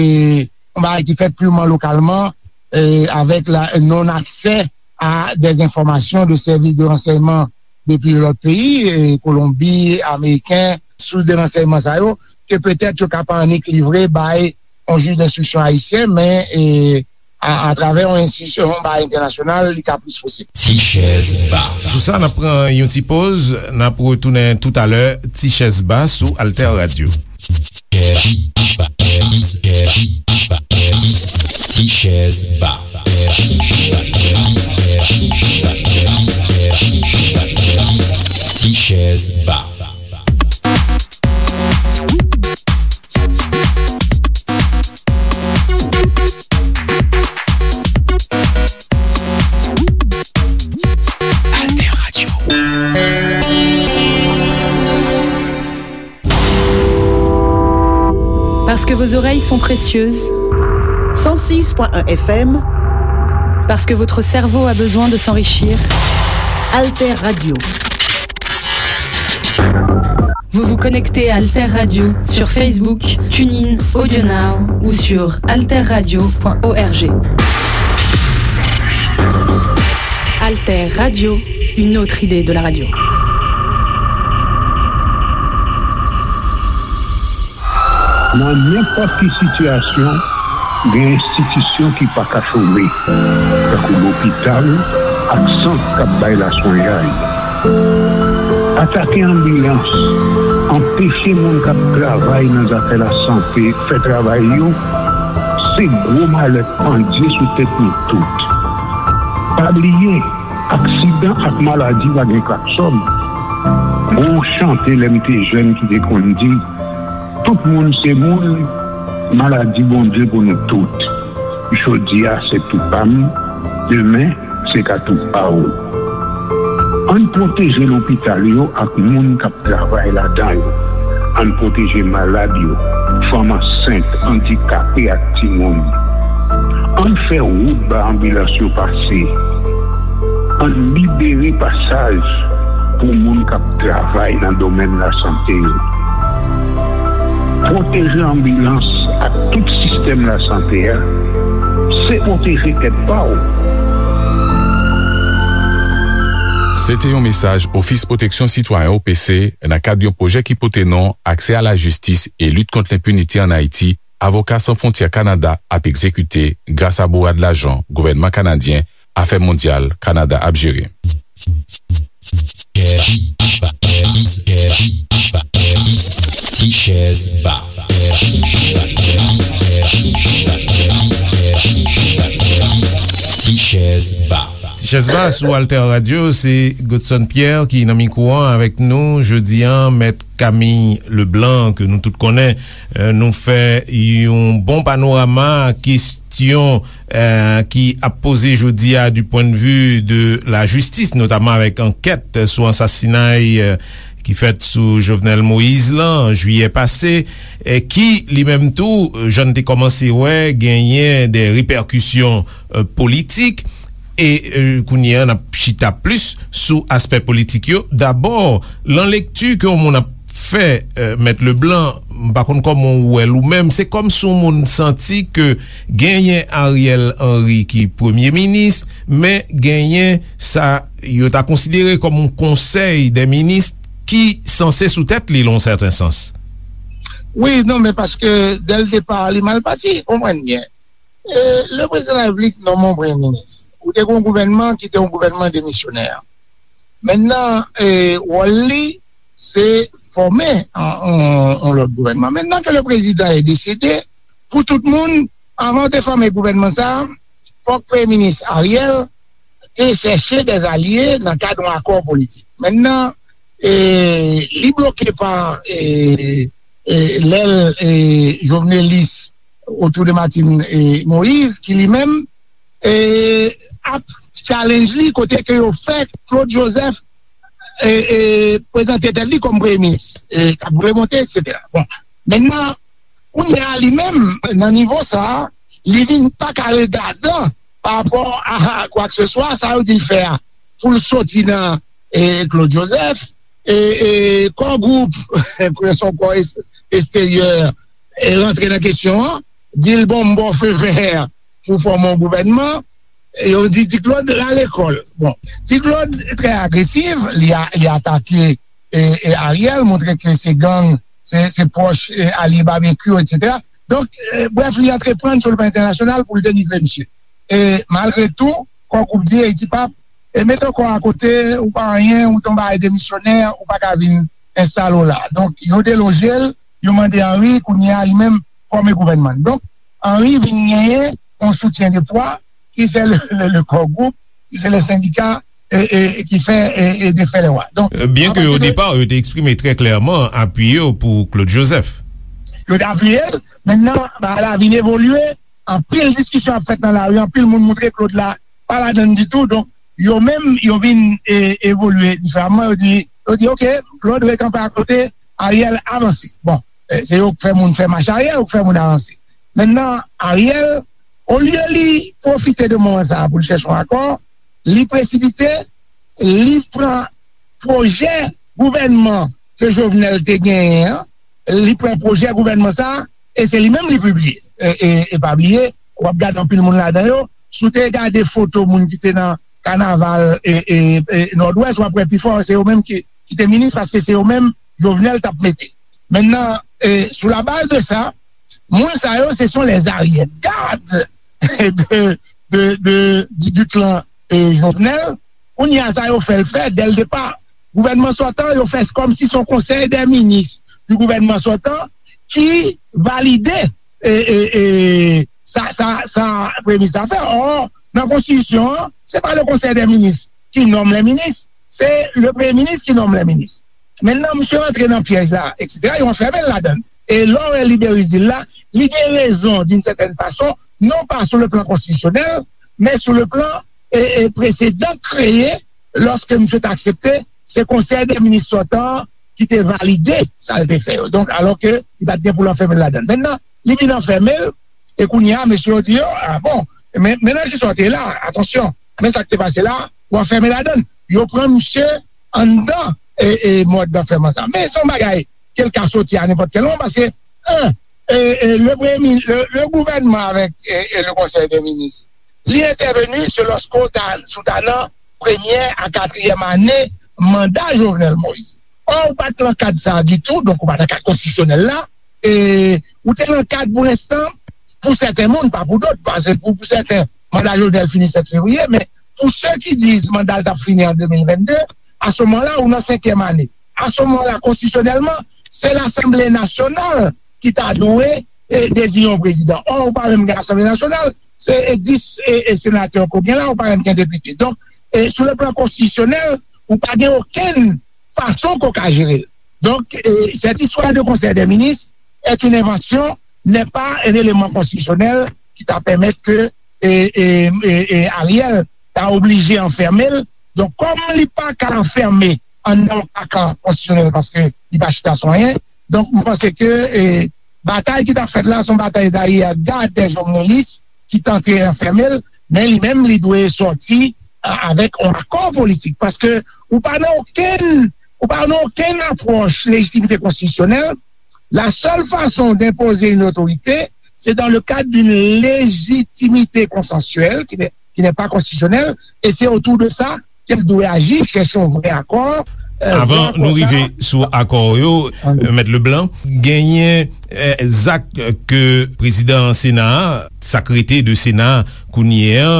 yon bagay ki fèt pirman lokalman, e, avèk la non aksè a de enfòmasyon de sèvis de ransèyman de plizyè lòt peyi, e, Kolonbi, Ameriken, sous de ransèyman sa yo, ke petèt yo ka pa annik livre bay yon jij denstriksyon ayisyen, men e, a, atravè yon enstitisyon, yon bagay entènasyonal, li ka plis posib. Ti chèz ba. Sou sa, n ap pran yon ti poz, n ap retounen toutalè, Ti chèz ba sou Alter Radio. Ti chèz ba. Ti chèz ba. Alter Radio. Parce que vos oreilles sont précieuses. Cent six point un F M. Parce que votre cerveau a besoin de s'enrichir. Alter Radio. Vous vous connectez à Alter Radio sur Facebook, TuneIn, AudioNow ou sur alter radio point org. Alter Radio, une autre idée de la radio. Nan nenpòt ki sitiyasyon, gen enstitisyon ki pa ka chome, tankou lopital ak sant k ap bay laswenyay. Atake anbilans, anpeche moun k ap travay nan zafè lasante fè travay yo, se gwo malè k pandye sou tèt nou tout. Pa bliye, aksidan ak maladi pa gen klaksòn. Gon chante lè m te jèn ki te konn di, tout moun se moun, maladi Bondye pou nou tout. Jodi a se tou pa m, demen se ka tou pa w. Ann pwoteje lopital yo ak moun k ap travay ladan yo. Ann pwoteje malad yo, fanm ansent, andikape ak timoun. Ann fè wout ba anbilans yo pase. Ann libere pasaj pou moun k ap travay nan domèn lasante yo. Pwoteje anbilans ak tout sistèm lasante a, se pwoteje tèt pa w. Se te yon mesaj Ofis Pwoteksyon Sitwayen, O P C, nan kad yon pwojè ki pote non Aksè a la jistis e lit kont lenpinite ann Ayiti, Avoka San Fwontyè Kanada ap egzekite gras a bourad lajan gouvènman kanadyen Afè Mondyal Kanada ap jere. Ti chèz ba. Ti chèz ba. Ti chèz ba sou Alter Radio, se Godson Pierre ki nan mikwo an avèk nou jodi a, Mèt Camille Leblanc, ke nou tout konnen. Eh, nou fè yon bon panorama kesyon, eh, ki ap poze jodi a du point de vue de la justice, notamman avèk ankèt sou ansasinay, eh, ki fèt sou Jovenel Moïse lan, an jiyè pase, eh, ki li menm tou, jan n te kòmanse wè, genyen de repèkisyon, eh, politik. E, eh, kounye a, n ap chita plis sou aspè politik yo. Dabò, lan lekti ke yon moun ap fè, eh, Mèt Leblanc, m pa konn kòman w wè l ou menm, se kòmsi yon moun santi ke genyen Ariel Henry ki premye minis, men genyen sa yo ta konsidere kòm yon konsèy dè minis ki sanse sou tèt li, lan yon sèten sans. Wi, non, men paske dè l depa, li mal pati, konprann byen. E, le prezidan de la repiblik nonmen yon premye minis. Ou te gen yon gouvènman ki te yon gouvènman demisyonè. Mentnan, e, wòl li, se fòme yon, yon, yon lòt gouvènman. Mentnan ke le prezidan e desede, pou tout moun, anvan yo te fòme gouvènman sa, fòk premye minis Ariel te chèche dè alye nan kad yon akò politik. Mentnan, e, li bloke pa, e, e, lèl, e, jovenelis otou de Martine, e, Moïse, ki li menm, e, ap challenge li kote ke yo fè Claude Joseph, e, e, prezante tèt li kòm premye minis, e, k ap remonte, etsetera. Bon, mentnan, kounye a li menm, nan nivo sa a, li vin pa ka regadan pa rapò a kwakseswa, sa yo di l fè a, pou l soti nan, e, Claude Joseph, e, e, kò gwoup, pou l se yon kò es-, eksteryè, e, rantre nan kesyon an, di l, bon, m ba w fe vè pou fòme yon gouvènman, e yo di Ti Claude rale kò l. Bon, Ti Claude trè agresif, li a, li atake, e, e, Ariel, montre ke se gang, se, se pwòch, e, alye Babekyou, etsetera. Donk, e, brèf, li antreprann sou le plan entènasyonal pou l denigre misye. e malgre tou, Core Group di Haiti Pap, e mete kò a kote, ou pa anyen, ou te yon bagay demisyonè, ou pa ka vin enstale w la. Donk, yo deloje l, yo mande Henry, kounye a, li menm, fòme gouvènman. Donk, Henry vin genyen yon soutyen de pwa, ki se le, le, le Core Group, ki se le sendika, e, e, e ki fè, e, e defè lè wa. Donk, Euh, byen ke o depa, yo te eksprime trè klèman apui yo pou Claude Joseph. Yo te apiye l, mentenan, bagay la vin evolye, anpil diskisyon ap fèt nan lari, anpil moun moutre Claude la pa ladann ditou, donk, yo menm, yo vin e, evolye diferaman, yo di, yo di, oke, Claude rekanpe akote, Ariel avanse. Bon, e, se yo k fè moun fè mach aryè, yo k fè moun avanse. Mentenan, Ariel, olye li pwofite de moman sa a pou l chèche yon akò, li presipite, li pran pwojè gouvènman ke Jovenel te genyen an, li pran pwojè gouvènman sa a, e se li menm li pibliye. E, e, e pa bliye, w ap gade anpil moun ladan yo, si w te gade foto moun ki te nan kanaval e, e, e Nòdwès, w ap wè pifò, se yo menm ki, ki te minis, paske se yo menm Jovenel t ap mete. Mentenan, e, sou la baz de sa, moun sa yo, se sont les arrière-gardes de, de, de, du, du clan e, Jovenel. Kounye a sa yo fè l fè, dès le départ, gouvènman sòtan, yo fè kòmsi se yon konsèy dè minis du gouvènman sòtan ki valide e, e, e, sa, sa, sa premye minis la fè. Ò, nan konstitisyon an, se pa le konsèy dè minis ki nonm lè minis, se le premye minis ki nonm lè minis. Mentenan, misye rantre nan pyèj la, etsetera, yo anfèmen l ladan l. E lè w wè Liberis di l la, li gen rezon, d'une certaine façon, non pa sou le plan konstitisyonèl, men sou le plan e, e presedan kreye, lòske misye t aksepte, se konsèy dè minis sòtan an ki te valide sa l te fè yo. Donk, alòske li pa t gen pou l anfèmen l ladan l. Mentenan, li vin anfèmen l, e kounye a, mesye yo di yo, a bon, men, men nan ki sa w te la, atansyon, men sa k te pase la, w anfèmen ladan l. Yo pran misye anndan e, e mòd anfèman sa. Men se yon bagay ke l ka soti a nenpòt kèl moman, paske, en, e, e, le premye, le, le gouvènman avèk e, e le konsèy dè minis, li entèveni se lòske w ta, si w ta nan premyè a katriyèm ane manda Jovenel Moïse. Ò, ou pa t nan kad sa a ditou, donk ou pa t nan kad konstitisyonèl la, e ou te nan kad pou lenstan, pou sèten moun, pa pou dòt, paske pou, pou sèten, manda Jovenel fini sèt fevriye, men pou se ki di manda l t ap fini an de mil vennde, a se moman la, ou nan senkyèm ane. A se moman la, konstitisyonèlman, se Lasanble Nasyonal ki ta dwe e, deziye yon prezidan. Ò, ou pa menm gen Lasanble Nasyonal, se e, dis e, e, senatè ke w gen la, ou pa menm gen depite. Donk, e, sou le plan konstitisyonèl, ou pa gen okenn fason ke w ka jere l. Donk, e, cette histoire de conseil des ministres est une invention, n'est pas un élément constitutionnel qui ta pèmèt ke e, e, e, e Ariel ta oblije anfèmen l. Donk, kòm li pa ka anfèmen anndan yon kakan konstitisyonèl paske li pa chita sou anyen, donk, mwen panse ke e, batay ki t ap fèt la, se yon batay dayè gad dè jovnelis ki tante anfèmen l, men li menm, li dwe sòti a, avèk yon akò politik. Paske ou pa nan okenn, ou pa nan okenn apwòch lejitimite konstitisyonèl. La seule façon d'imposer une autorité, c'est dans le cadre d'une légitimité consensuelle qui n'est, qui n'est pas constitutionnelle, et c'est autour de ça ke l dwe aji, chèche yon vrè akò. Avan nou rive sou akò yo, Mèt Leblanc, genyen zak ke prezidan Sena a, sa k rete de Sena a kounye a,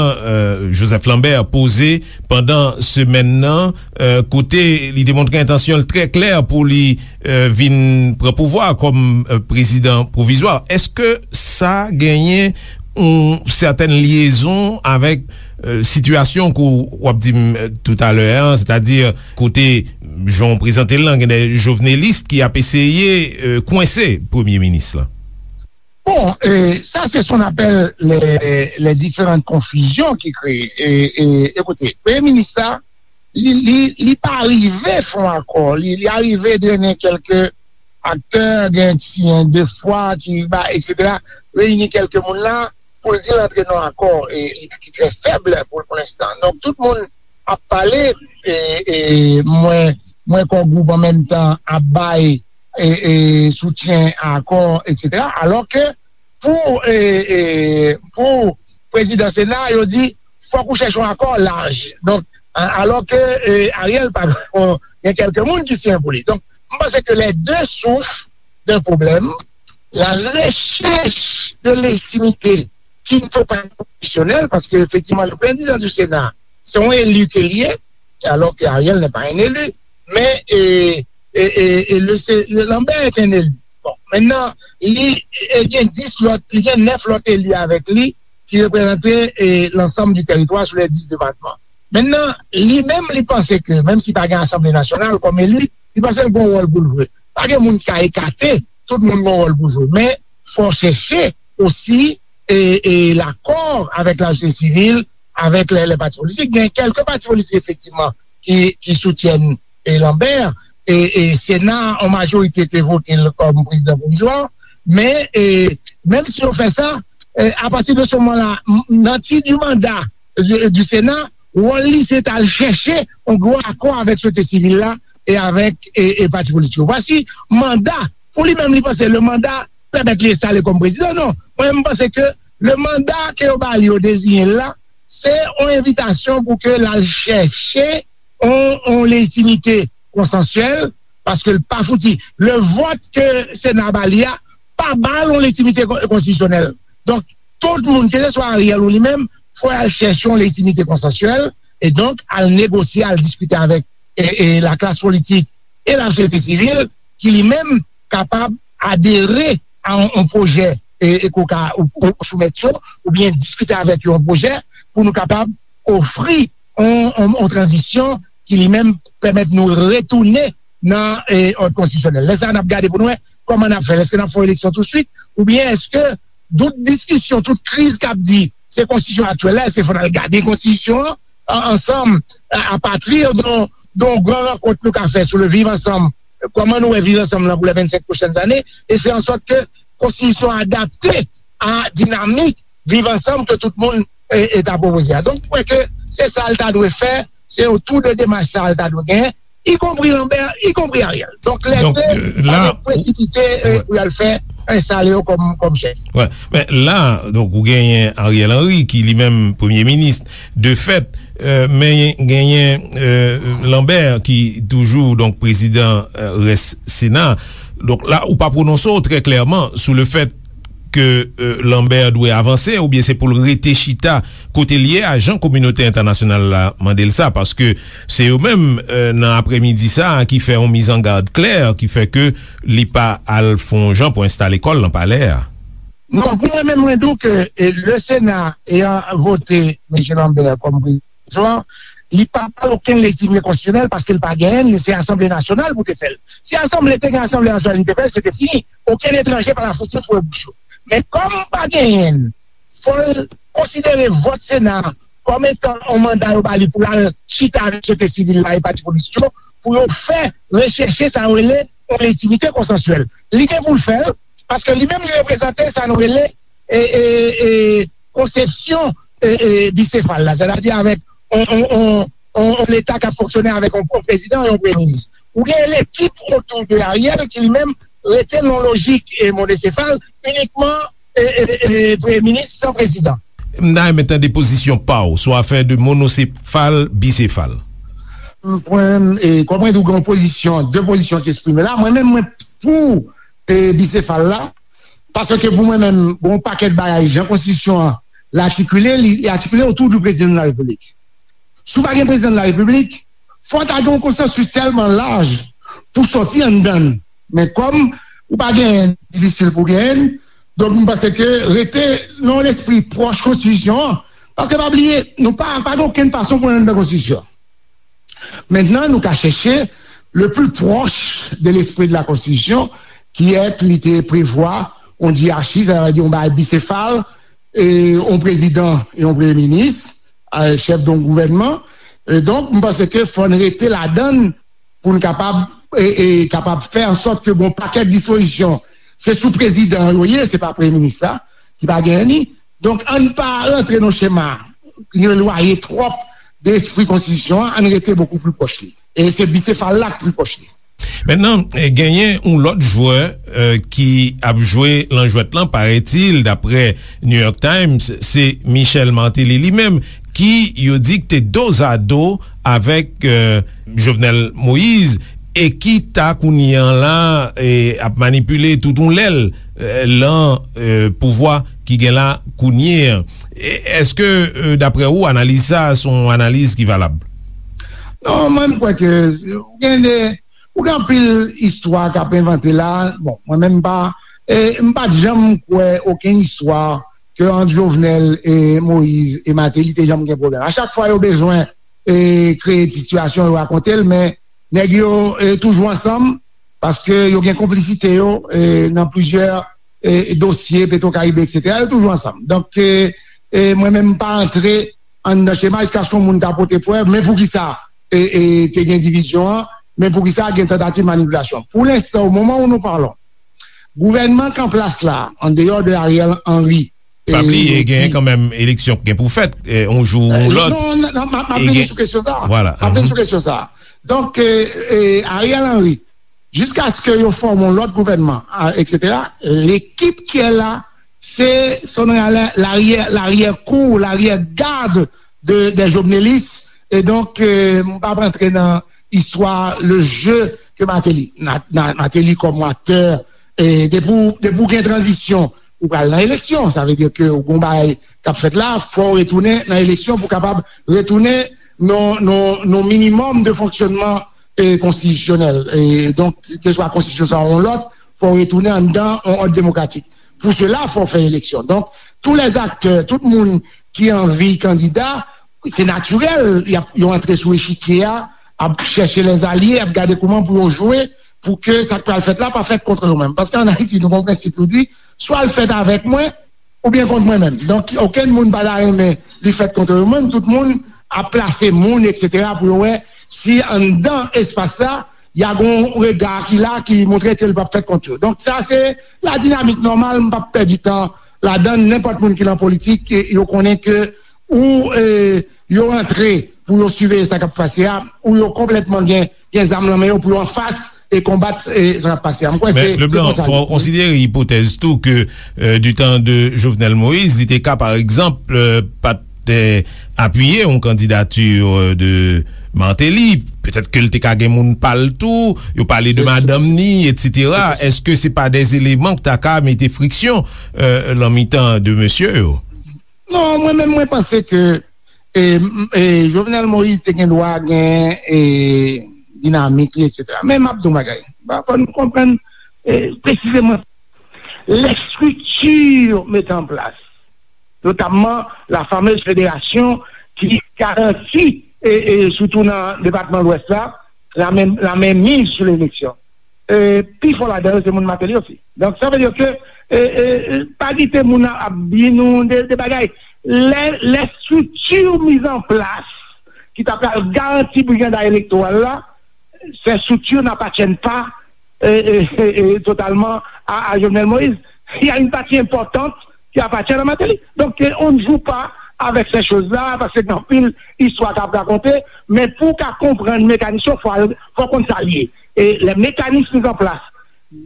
Joseph Lambert, poze pandan semèn nan, kote li te montre entansyon l trè klè pou li vin pran pouvwa kòm prezidan pwovizwa. Èske sa genyen yon sètèn lyezon avèk sitiyasyon ke w ap di m toutalè a, sètadi kote jan w prezante l lan, gen de jovnelis ki ap eseye kwense premye minis lan? Bon, e, sa se son apèl lè, lè diferan konfizyon ki kreye. E, e, ekoute, premye minis la, li, li, li pa rive fè yon akò. Li, li arive drennen kèlke aktè, gen ti en de fwa ki ba, etsetera, reyini kèlke moun la pou l di l antre nan akò, e, e ki trè fèb pou, pou lenstan. Donk, tout moun ap pale, e, e mwen, mwen Core Group an menm tan ap bay, e, e soutyen a akò, etsetera. Alòke pou, e, e, pou prezidan Sena, yo di, fòk ou chèche yon akò laj. Donk, a, alòke, e, Ariel pa gen kèlke moun ki siyen pou li. Donk, mwen panse ke les deux souffrent d'un problème, la recherche de légitimité ki n pa konstitisyonèl, paske efektivman, le président du Sénat, se yon eli ke l ye, alors que Ariel n'est pas un élu. Men, e, e, e, e le, se, le Lambert est un élu. Bon, maintenant, li e, gen dis lòt, li gen nèf lòt eli avèk li ki reprezante e, l'ensemble du territoire sur les dix départements. Maintenant, li menm, li panse ke, menm si pa gen Asanble Nasyonal kòm eli, li panse l gen yon wòl pou l jwe. Pa gen moun ki ka ekate, tout moun gen yon wòl pou jwe. Men, fò chèche osi e, e, l'accord avec la société civile, avec les, les partis politiques. Gen kèlke pati politik, efektivman, ki, ki soutyen e, Lambert. E, e Sena, an majorite, te vote l kòm prezidan pwovizwa. Men, e, menm si yo fè sa, e, apati de se moman la, nan ti di manda du, du Sena, wòl li se t al chèche yon gwo akò avèk sosyete sivil la e avèk e, e pati politik yo. Vwasi manda, pou li menm, li panse le manda pèmèt li enstale kòm prezidan. Non, mwen, m panse ke le manda ke yo ba li, yo deziyen l la, se yon envitasyon pou ke l al chèche yon, yon lejitimite konsansyèl, paske l pa fouti. Le vòt ke Sena ba li a pa ba l yon lejitimite kon- konstitisyonèl. Donk, tout moun, keseswa Ariel ou li menm, fò y al chèche yon lejitimite konsansyèl, e donk al negosye, al diskite avèk e, e laklas politik e lasosyete sivil ki li menm kapab adere a yon, yon pwojè e, e ke w ka ou, ou soumèt yo, oubyen diskite avèk yo yon pwojè pou nou kapab ofri yon, yon, yon tranzisyon ki li menm pèmèt nou retounen nan e, òd konstitisyonèl. Lè sa a, n ap gade pou n wè kòman n ap fè l. Èske n ap fè yon eleksyon tousuit, oubyen èske tout diskisyon, tout kriz k ap di se konstitisyon aktyèl la, èske fò n al gade konstitisyon an, an, ansanm, a, apati de, de yon gran rankont nou ka fè sou le viv ansanm, kòman nou wè viv ansanm lan pou les vingt-cinq prochaines années, e fè an sòt ke konstitisyon an adapte a dinamik viv ansanm ke tout moun e, e ta pwopoze a. Donk, m kwè ke se sa l ta dwe fè, se otou de demach sa l ta dwe genyen, ikonpri Lambert, ikonpri Ariel. Donk, lè Donk, de, euh, pa la, gen presipite e, ouais. Pou y al fè enstale yo kòm, kòm chèf. Wè. Men la, donk, ou genyen Ariel Henry, ki li menm premye minis, de fèt, euh, men genyen euh, Lambert, ki toujou, donk, prezidan euh, rès Sena. Donk, la, ou pa pwononse w trè klèman sou le fèt ke euh, Lambert dwe avanse, oubyen se pou l rete chita kote l ye a, jan kominote entènasyonal la mande l sa, paske se yo menm, euh, nan aprèmidi sa a, ki fè yon mizangad klè, ki fè ke li pa al fè yon jan pou enstale kò l nan palè a. Non, pou mwen menm, mwen di w ke e, le Sena eyan vote mesye Lambert kòm prezidan, li pa ba l okenn lejitimite konstitisyonèl, paske l pa genyen l, se Asanble Nasyonal pou te fè l. Si Asanble te gen Asanble Nasyonal, li te fè l, se te fini. Okenn etranje pa ta fouti foure bouch yo. Men kòm pa genyen l, fò l konsidere vòt Sena a kòm etan yon manda yo ba li pou l al chita avèk sosyete sivil la e pati politik yo, pou yo fè rechèche sa yo rele yon lejitimite konsansyèl. Li gen pou l fè l, paske li menm li reprezante sa nou rele e, e, e, konsepsyon e, e, bisefal la, sètadi avèk yon, yon, yon, yon, yon Leta k ap fonksyone avèk yon, yon prezidan e yon premye minis. Ou gen lekip otou de Ariel ki li menm rete nan lojik e, monosefal, inikman e, e, e, premye minis san prezidan. M ta renmen tande pozisyon pa w sou afè de monosefal, bisefal. M pran, e, kòm mwen di w gen yon pozisyon, de pozisyon ki eksprime la, mwen menm mwen pou e, bisefal la, paske pou mwen menm, gen yon pakèt bagay, jan konstitisyon an l atikile, li, li atikile otou di prezidan de la repiblik. Si w pa gen prezidan de la repiblik, fò ta gen yon konsansis tèlman laj pou sòti anndan l. Men kòm ou pa genyen, difisil pou genyen l, donk m panse ke rete nan yon lespri pwòch konstitisyon an, paske pa bliye, nou pa, pa gen okenn fason pou n anndan konstitisyon an. Mentnan, nou ka chèche le plus proche de l'esprit de la Constitution, ki èt li te prevwa yon dyarachi, sa vle di yon bagay bisefal, e yon prezidan e yon premye minis, e chèf de yon gouvènman. E donk, m panse ke fò n rete ladan l pou n kapab, e, e kapab fè an sòt ke gon pakèt dispozisyon, se sou prezidan yo ye, se pa premye minis la, ki pa genyen li. Donk, ann pa rantre nan chema ki elwaye twòp de espri konstitisyon an, ann rete bokou pli pwòch li. E se bisefal la k pli pwòch li. Mentnan, eh, genyen yon lòt jwè, eh, ki ap jwe lan jwèt lan, parètil, daprè New York Times, se Michel Martelly li menm, ki yo di k te dozado avèk, eh, Jovenel Moïse. e ki ta kounye an la e, ap manipile tout yon lèl e, lan e, pouvwa ki gen la kounye an. E, èske, e, daprè ou, analiz sa a se yon analiz ki valab? Non, mwen, m kwè ke gen de, ou gen anpil istwa k ap envante la. Bon, mwen menm, m pa, e, m pa t janm kwè okenn istwa ke ant Jovenel e Moïse e Martelly te janm gen pwoblèm. A chak fwa yo bezwen e, kreye sitiyasyon, yo rakonte l, men nèg yo e, toujou ansanm, paske yo gen konplisite yo e, nan plizyè e, dosye Petro Caribe, etsetera. Yo toujou ansanm. Donk, e, e, mwen menm, m pa antre anndan chema jiskaske yon moun ta pote prèv, men poukisa e, e, te gen divizyon an, men poukisa gen tantativ manipilasyon. Pou lenstan, o moman où nous parlons, gouvènman k an plas la, an deyò de Ariel Henry, Pa bliye, gen kanmenm eleksyon k gen pou fèt, yon jou ou yon lòt. Non, non, m ap vini sou kesyon sa a. M ap vini sou kesyon sa a. Donk, Ariel Henry, jiskaske yo fòme yon lòt gouvènman, etsetera, l'équipe qui est là, se, ce qu'on a, l'arrière, l'arrière-cour, l'arrière-garde de, des jovenelistes. E donk, m p ap rantre nan istwa, le jeu ke Martelly, Martelly kòm aktè, depi w gen tranzisyon, ou pral nan eleksyon. Sa vle di ke ou gen yon bagay k ap fèt la, fò w retounen nan eleksyon pou w kapab retounen nan yon minimòm de fonksyònman konstitisyonèl. Donk, keswa konstitisyon sa a yon lòt, fò w retounen anndan yon òd demokratik. Pou sela, fò w fè eleksyon. Donk, tous les acteurs, tout moun ki anvi kandida, se natirèl, y ap, yo antre sou echikye a, ap chèche lèzalye, ap gade kòman pou yo jwe, pou ke sa k pral fèt la pa fèt kont yo menm. Paske ann Ayiti, nou gen yon prensip, nou di, swa l fèt avèk mwen, oubyen kont mwen menm. Donk, okenn moun pa ta renmen li fèt kont yo menm, tout moun ap plase moun, etsetera, pou yo wè si anndan espas sa, y a gen yon rega ki la ki montre ke l p ap fèt kont yo. Donk, sa se la dinamik nòmal, m p ap pèdi tan ladan l. Nenpòt moun ki nan politik, yo konnen ke ou yo rantre pou yo siveye sa k ap pase a, ou yo konplètman gen gen zam nan men yo pou yo anfas e konbat sa k ap pase a. M kwè se se konsa. Men Leblanc, fò w konsidere ipotèz tou ke du temps de Jovenel Moïse, li te ka, pa egzanp, pa t apiye yon kandidati de Martelly. Petèt ke l te ka gen moun pa l tou, yo pale de madanm ni, etsetera. Èske se pa de eleman ki ta ka mete friksyon lan mitan de mesye yo? Non, mwen menm, mwen panse ke e, e, Jovenel Moïse te gen dwa gen e, dinamik li, etsetera. Men m ap di w yon bagay. Fò nou konprann e, presizeman lèstrikti mete an plas, notamman la fameuse fédération ki garanti, e, e, sitou nan depatman Lwès la, la men, la menmiz sou leleksyon. E, pifò ladan yo se moun Martelly osi. Donk, sa vle di ke e, e, e, pa kite moun ap di nou de, de bagay. Lè, lè strikti miz an plas ki ta pral garanti brigada elektoral la, ces structures n'appartiennent pas e, e, e, e, totalement à, à Jovenel Moïse. Il y a une partie importante qui appartient à Martelly. Donc, on ne joue pas avec ces choses-là, parce que gen anpil istwa k ap rakonte, men pou w ka konprann mekanis yo, fò, fò w konn sa l ye. E les mécanismes mis en place,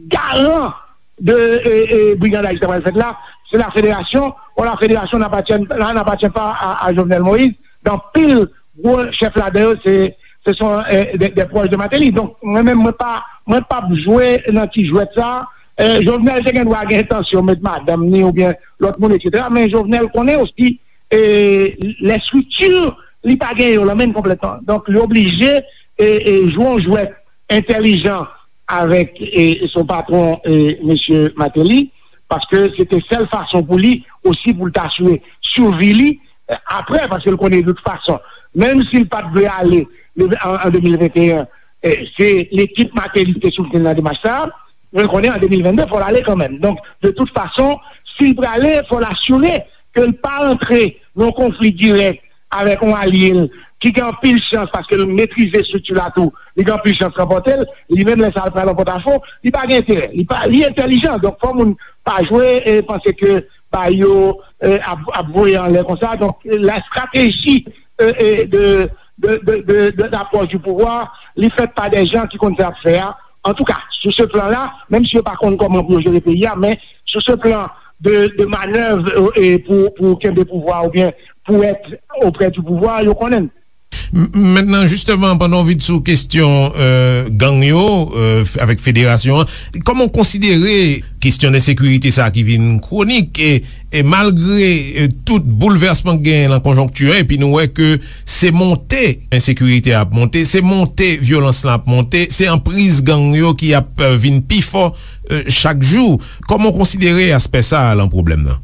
garan de e, e, brigandaj ki ta pral fèt la, se la fédération. Or, la fédération n'appartient, n'appartient pas à, à Jovenel Moïse. Gen anpil gwo chèf ladan yo, se, se son e, de, de pwòch de Martelly. Donk, mwen menm, mwen pa, mwen p ap jwe nan ti jwèt sa. E, Jovenel te gen dwa gen entansyon met madanm ni oubyen lòt moun, etsetera. Men Jovenel konnen osi e, lè strikti li pa gen yo lan men l konplètman. Donk, li oblije e, e, jwe yon jwèt entèlijan avèk e, son patwon, e, mesye Martelly, paske se te sèl fason pou li osi pou l ta asire sivi li e, apre, paske l konnen de tout fason, menm si l pa t vle ale an, an de mil venteyen, e, se lekip Martelly ki te soutni l nan demach sa a. Mwen konnen an de mil vennde, fò l ale kanmenm. Donk, de tout fason, si l prale, fò l asire ke l pa rantre nan yon konfli dirèk avèk yon alye l ki gen anpil chans, paske l metrize estrikti la tou, li gen anpil chans ranpòte l. Li menm, lè sa a, l pral an pòtafo, li pa gen enterè. Li pa, li entèlijan. Donk, fò moun pa jwe e panse ke bagay yo e, ap, ap voye anlè konsa. Donk, la stratégie e, e, de, de, de, de, de, d'approche du pouvoir, li fèt pa de jan ki konn sa y ap fè a. Antouka, sou se plan la, menm si yo pa konn kòman pou yo jere peyi a, men sou se plan de, de manèv e, e, pou, pou kenbe pouvwa oubyen pou èt oprè di pouvwa, yo konnen l. M- Mentnan, jisteman, pandan w vin sou kesyon, euh, gang yo, euh, f- avèk federasyon an, kòman w konsidere kesyon ensekirite sa a ki vin kwonik, e, e malgre, euh, tout boulvèsman k genyen nan konjonkti an, epi nou wè ke se monte ensekirite a ap monte, se monte vyolans lan ap monte, se anpriz gang yo ki ap, euh, vin pi fò, euh, chak jou. Kòman w konsidere aspè sa a nan pwoblèm nan?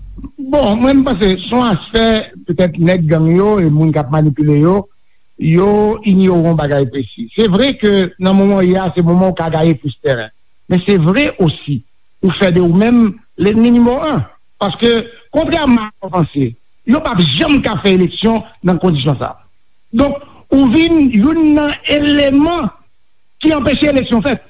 Bon, mwen, m panse se yon aspè, petèt, nèg gang yo e moun k ap manipile yo, yo inyore yon bagay presi. Se vre ke nan moman w ye a, se moman w ka gaye plis tèren. Men se vre osi, ou fè de ou menm lènmi nimewo en. Paske, kontrèman a sa w panse, yo p ap janm ka fè eleksyon nan kondisyon sa a. Donk, ou vin youn nan eleman ki anpeche eleksyon fèt.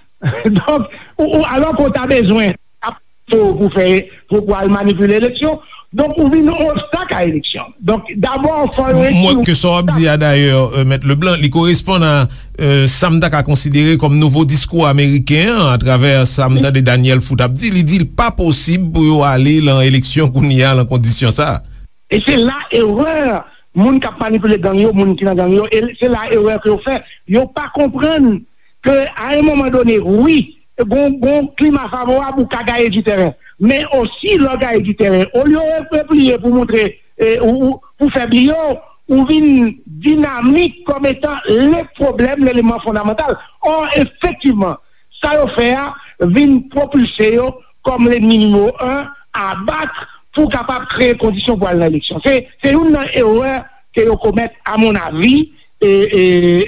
Donk, ou, ou, alò ke w ta bezwen ap pou, pou fè, pou, pou al manipile eleksyon. Donk, ou vin yon obstak a eleksyon. Donk, dabò, fò yo... Mwen, ke sa w ap di a, dayè, euh, Mèt Leblanc, li koresponn a, euh, sa m ta ka konsidere kòm nouvo diskou ameriken an, atravè sa m tande Daniel Foot ap di. Li di l pa posib pou yo ale nan eleksyon kounye a nan kondisyon sa a. E se la erè moun k ap manipile gang yo, moun ki nan gang yo, e se la erè ke yo fè. Yo pa konprann ke, a yon moman done, wi, gon, gon klima favorab, ou ka gaye di tèren. Men osi, lè w gaye di tèren, olye w repliye pou montre, e, ou, ou, pou fè bri yo, ou vin dinamik kòm etan le pwoblèm, leleman fondamantal. Ò, efektivman, sa yo fè a vin pwopilse yo kòm lènmi nimewo en a bat pou kapab kreye kondisyon pou al nan eleksyon. Se, se youn nan erè ke yo komèt, a mon avi, e, e,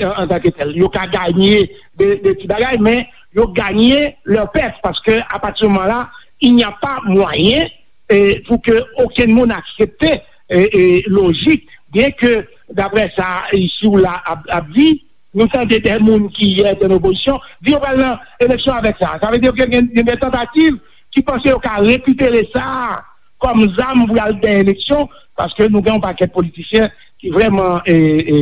an, antanke tèl. Yo ka ganye de, de ti bagay, men yo ganye lè pèt, paske a pati de moman la, il n'y a pas moyen, e, pou ke okenn moun aksepte, e, e, lojik, byen ke, daprè sa isi ou la ap, ap di, nou tande de moun ki yè te nan opozisyon di yo pral nan eleksyon avèk sa. Sa vle di ke gen, gen de tantativ ki panse yo ka rekipere sa kòm zam pou y al gen eleksyon, paske nou gen yon pakèt politisyen ki vrèman, e, e,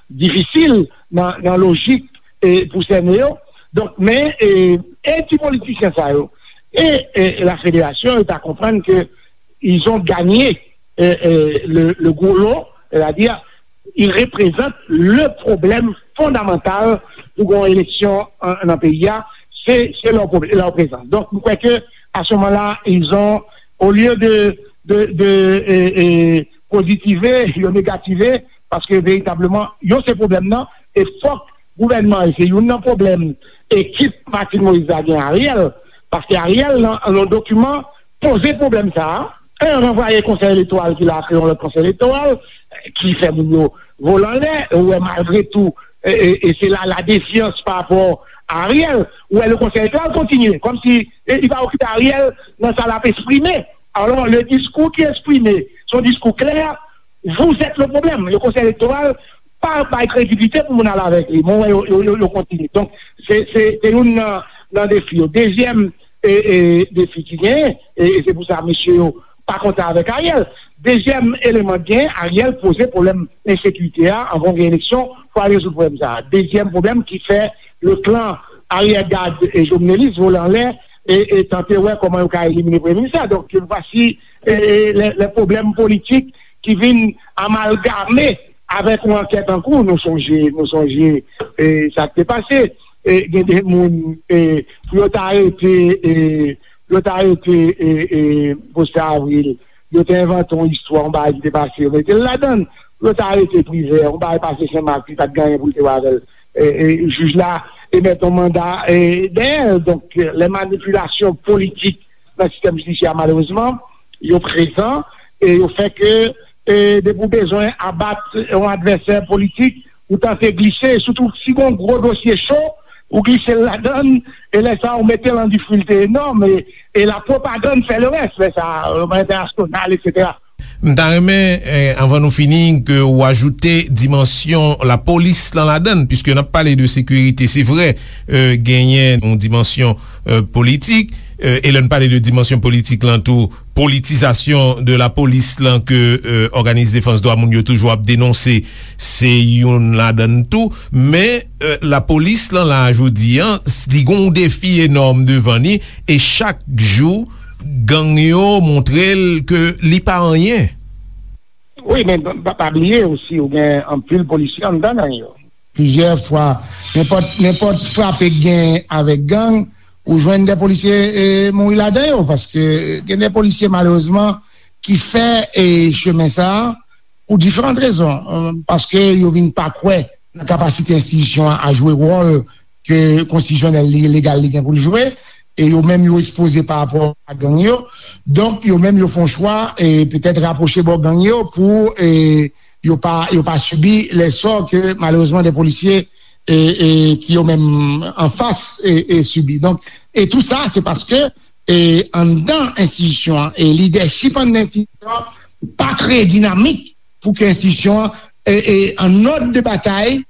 difisil nan, nan lojik, e, pou sène yo. Donk, men, e, e ti politisyen sa yo, e, e la federasyon, yo ta konprann ke ils ont gagné, euh, euh, le, le gros lot, c'est-à-dire, ils représentent le problème fondamental pou gen yon eleksyon an, nan peyi a, se, se leur, prob- leur présence. Donk, m kwè ke, à ce moment-là, ils ont, au lieu de, de, de, euh, euh, pozitive, yo negative, paske veritableman, yo se pwoblèm nan, e fòk gouvènman an, se youn nan pwoblèm ekip Martine Moïse la gen Ariel, paske Ariel, nan, nan yon dokiman, poze pwoblèm sa a, en, ranvwaye konsèy elektoral ki la, kreye yon lòt konsèy elektoral, ki fè moun yo vole anlè, ou wè malgre tou, e, e, e se la, la défiance par rapport à Ariel, ou wè le konsèy elektoral kontinye, kòmsi, e, li pa okipe Ariel nan sa l ap eksprime. Alors, le discours qui est exprimé, c'est un discours clair, vous êtes le problème. Le konsèy elektoral pa bay kredibilite pou moun al avèk li. Mwen wè yo, yo, yo, yo kontinye. Donk, se, se, se youn nan, nan defi yo. Dezyèm, e, e, defi ki genyen, e, e se pou sa mesye yo pa kontan avèk Ariel. Dezyèm eleman ki genyen, Ariel poze pwoblèm ensekirite a, anvan gen eleksyon, fò al rezoud pwoblèm sa a. Dezyèm pwoblèm ki fè le clan arrière-garde e jovenelis vole anlè e, e tante wè kòman yo ka elimine premye minis la. Donk, vwasi, e, e, lè, lè pwoblèm politik ki vin amalgame avèk yon ankèt an kou. Nou sonje, nou sonje, e, sa k te pase. E, gen de moun, e, pou yo ta arete, e, pou yo ta arete, e, e, Faustin Avril, yo te envante yon istwa, yon bagay ki te pase, yo mete l ladan l. Pou yo ta arete Privè, yon bagay pase Senmak, li pa t gen anyen pou l te wè avè l. E, e, jij la emèt yon manda, e, dèyè l. Donk, lè manipilasyon politik nan sistèm jidisyè a, malerezman, yo prezan e yo fè ke, e, depi w bezwen abat yon advèsè politik, ou tante glise, sitou si gon gwo dosye cho, ou glise l ladan l, e lè sa a, ou mete l an difikilte enòm, e, e la pwopagann fè le rès, lè sa a, e, entènasyonal, etsetera. M ta renmen, eh, anvan nou fini, ke w ajoute dimansyon lapolis lan ladann, piske n ap pale de sekirite, se vre, eh, genyen yon dimansyon, eh, politik, eh, e lè n pale de dimansyon politik lan tou, politizasyon de lapolis lan ke, eh, òganis defans dwa moun yo toujou ap denonse, se youn ladann tou, men, eh, lapolis lan la jodi an, s- li gon defi enòm devan li, e chak jou, gang yo montre l ke li pa anyen. Wi, men pa, pa bliye osi, ou gen anpil polisye anndan gang yo. Plizyè fwa, nenpòt, nenpòt frape k gen avèk gang, ou jwenn de polisye e, mouri ladan yo, paske gen de polisye, malerezman, ki fè e, chemen sa a pou diferan rezon, e, paske yo vin pa kwè nan kapasite enstitisyon an a jwe wòl ke konstitisyonèl li, legal li gen pou l jwe, e yo menm yo ekspoze pa rapò a gang yo. Donk, yo menm yo fè yon chwa, e petèt rapwoche bò gang yo pou e, yo pa, yo pa sibi lè sò ke malerezman de polisye e, e, ki yo menm anfas e, e sibi. Donk, e tou sa, se paske e, anndan enstitisyon an, e lidèchip anndan enstitisyon an pa kreye dinamik pou ke enstitisyon an e, e, an òd de batay,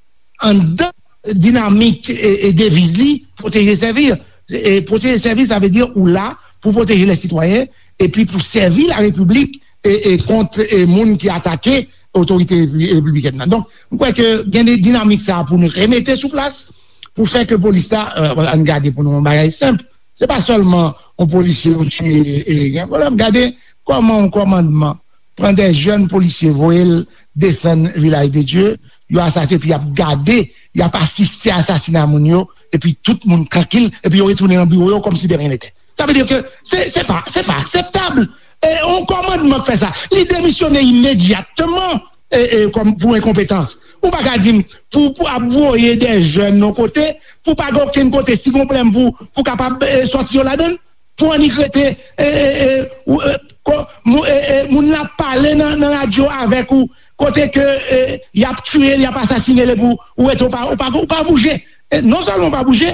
anndan dinamik e, e deviz li, pwoteje sèvi. E pwoteje sèvi, sa vle di ou la pou pwoteje lè sitwayen epi pou sèvi la repiblik e, e kont e, moun ki atake otorite repi- repibliken nan. Donk, m kwè ke gen de dinamik sa a pou nou remete sou plas, pou fè ke polis la, e, ann gade pou nou yon bagay senp. Se pa sèlman yon polisye yo tiye e gen pwoblèm. Gade kòman yon kòmandman pran de jèn polisye, voye l desann Vilaj de Dye, yo asasinen, epi y ap gade, y ap asiste asasina moun yo, epi tout moun trankil, epi yo retounen nan biwo yo kòmsi de ryen nete. Sa vle di ke se, se pa, se pa akseptab. E yon kòmandman k fè sa, li demisyone imedyatman e, e, kòm pou enkonpetans. Ou pa ka di m pou, pou ap voye de jèn yon kote, pou pa gen okenn kote, si gen pwoblèm pou, pou kapab e, sòti yo ladan l, pou annik rete e, e, e, ou, e, ko- mou- e, e, moun nan ap pale nan, nan radyo avèk ou, kote ke e, y ap tiye l, y ap asasine l, epi ou, ou rete, ou pa, ou pa, ou pa bouje. E non sèlman ou pa bouje,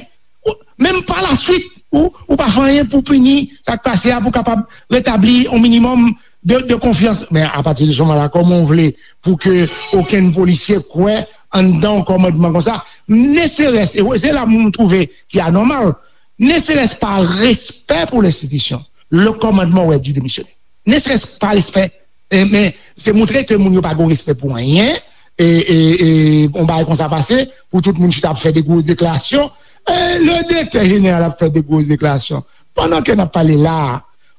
ou, menm pa la swit, ou, ou pa fè anyen pou pini sa k pase a, pou kapab retabli yon minimòm de, de konfyans. Men apati de se moman la, kòman w vle pou ke okenn polisye kwè anndan yon kòmandman konsa, ne serait-ce, e se la m twouve ki anòmal, ne serait-ce pa respè pou lenstitisyon, le kòmandman aurait dû démissionner. Ne serait-ce pa respè, e, men se montre ke moun yo pa gen respè pou anyen, e, e, e yon bagay konsa pase, pou tout moun chita ap fè de gwo deklarasyon, e, le direktè jeneral ap fè de gwo deklarasyon. Pandan ke n ap pale la a,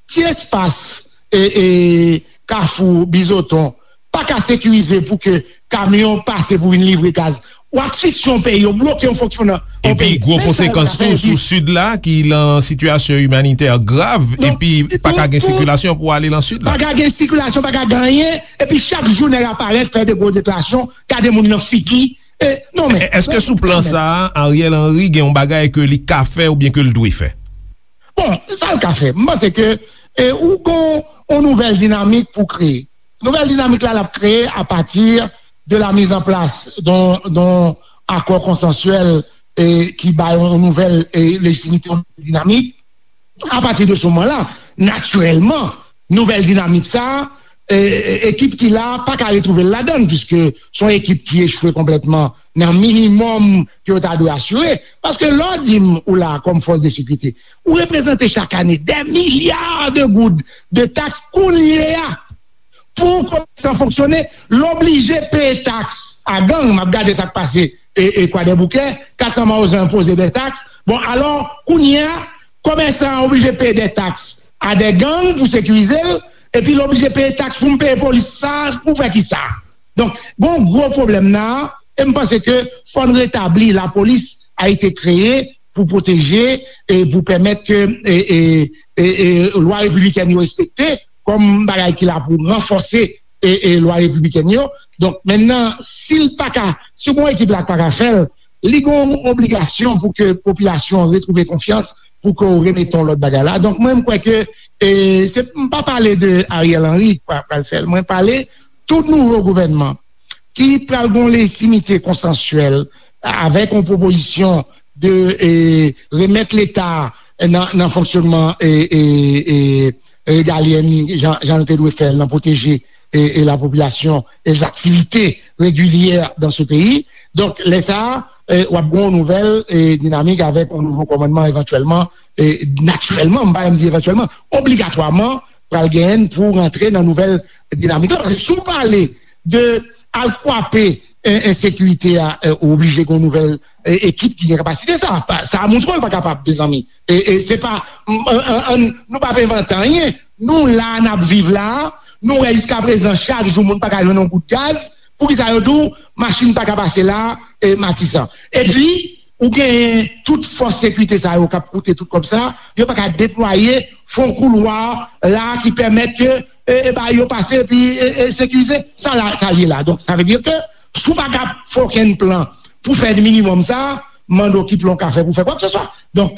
ti espas e, e, Kafou Bizoton pa ka sekirize pou ke kamyon pase pou vin livre gaz. Ou asfisye yon peyi, ou bloke yon fonksyonan yon peyi. Epi gwo konsekans tou sou Sid la, ki lan sitiyasyon imanitè grav, epi pa ka gen sikilasyon pou ale lan Sid la. Pa ka gen sikilasyon, pa ka gen anyen, epi chak jou nèg aparèt, fè de gwo deklarasyon, gade moun nan figi. E, non, men, èske sou plan sa a, Ariel Henry gen yon bagay ke li ka fè oubyen ke l dwe fè? Bon, sa l ka fè, m panse ke e, ou gon yon nouvèl dinamik pou kreye. Nouvèl dinamik la, l ap kreye apati de la mizanplas don, don akò konsansyèl e, ki bay yon nouvèl e, lejitimite, yon nouvèl dinamik. Apati de se moman la, natirèlman, nouvèl dinamik sa, e, e, ekip ki la pa ka retwouve l ladan l, piske se yon ekip ki echwe konplètman nan minimòm ke yo ta dwe asire. Paske lè w di m ou la kòm fòs de sekirite, ou reprezante chak ane dè milya de goud de taks kounye a. Pou komèsan fonksyone, l oblije peye taks a gang. M ap gade sa k pase e, e Kwadèboukè, kat san Mawozan enpoze de taks. Bon, alò, kounye a, komèsan an oblije peye de taks a de gang pou sekirize l, epi l oblije peye taks pou m peye polis sa, pou fè kisa? Donk, gon gwo pwoblèm nan, e m panse ke fò n retabli lapolis a été kreye pou pwoteje e pou pèmèt ke e, e, e, e, lwa repiblikèn yo respekte kòm bagay ki la pou ranfòse e, e, lwa repiblikèn yo. Donk, mentnan, si l pa ka, si gon ekip la pa ka fè l, li gon obligasyon pou ke popilasyon an retwouve konfyans, pou ke w remete yon lòt bagay la. Donk, mwen, m kwè ke e, se, m pa pale de Ariel Henry k pral fè l. Mwen pale tout nouvo gouvènman ki pral gon lejitimite konsansyèl avèk yon pwopozisyon de e, remèt Leta nan, nan fonksyonman e, e, e, regalyè li, jan, jan l te dwe fè l nan pwoteje e, e, lapopilasyon e zaktivite regilyè dan se peyi. Donk, lè sa a, e, w ap gen yon nouvèl e, dinamik avèk yon nouvo kòmandman evantyèlman, e, natirèlman, m pa menm di evantyèlman, obligatwaman, pral genyen pou rantre nan nouvèl dinamik la. Paske si w pale de al kwape e, ensekirite a, e, ou oblije gen yon nouvèl e, ekip ki gen kapasite sa. Pa- Sa a montre w l pa kapab, mezanmi. E, e se pa, m- an- an- an- nou p ap envante anyen. Nou la, n ap viv la, Nou wè jiska prezan, chak jou moun pa ka jwenn yon gout gaz. Poukisa yo di w machin pa ka pase la, e, Matisan? Epi, ou genyen tout fòs sekirite sa yo k ap koute tout kòb sa, yo pa ka deplwaye, fè yon koulwa la ki pèmèt ke, e, e, ba yo pase epi, e, e, sekirize. Sa la, sa l ye la. Donk, sa vle di ke si w pa ka fè okenn plan pou fè minimòm sa, mande w ki plan w ka fè pou fè kwakseswa. Donk,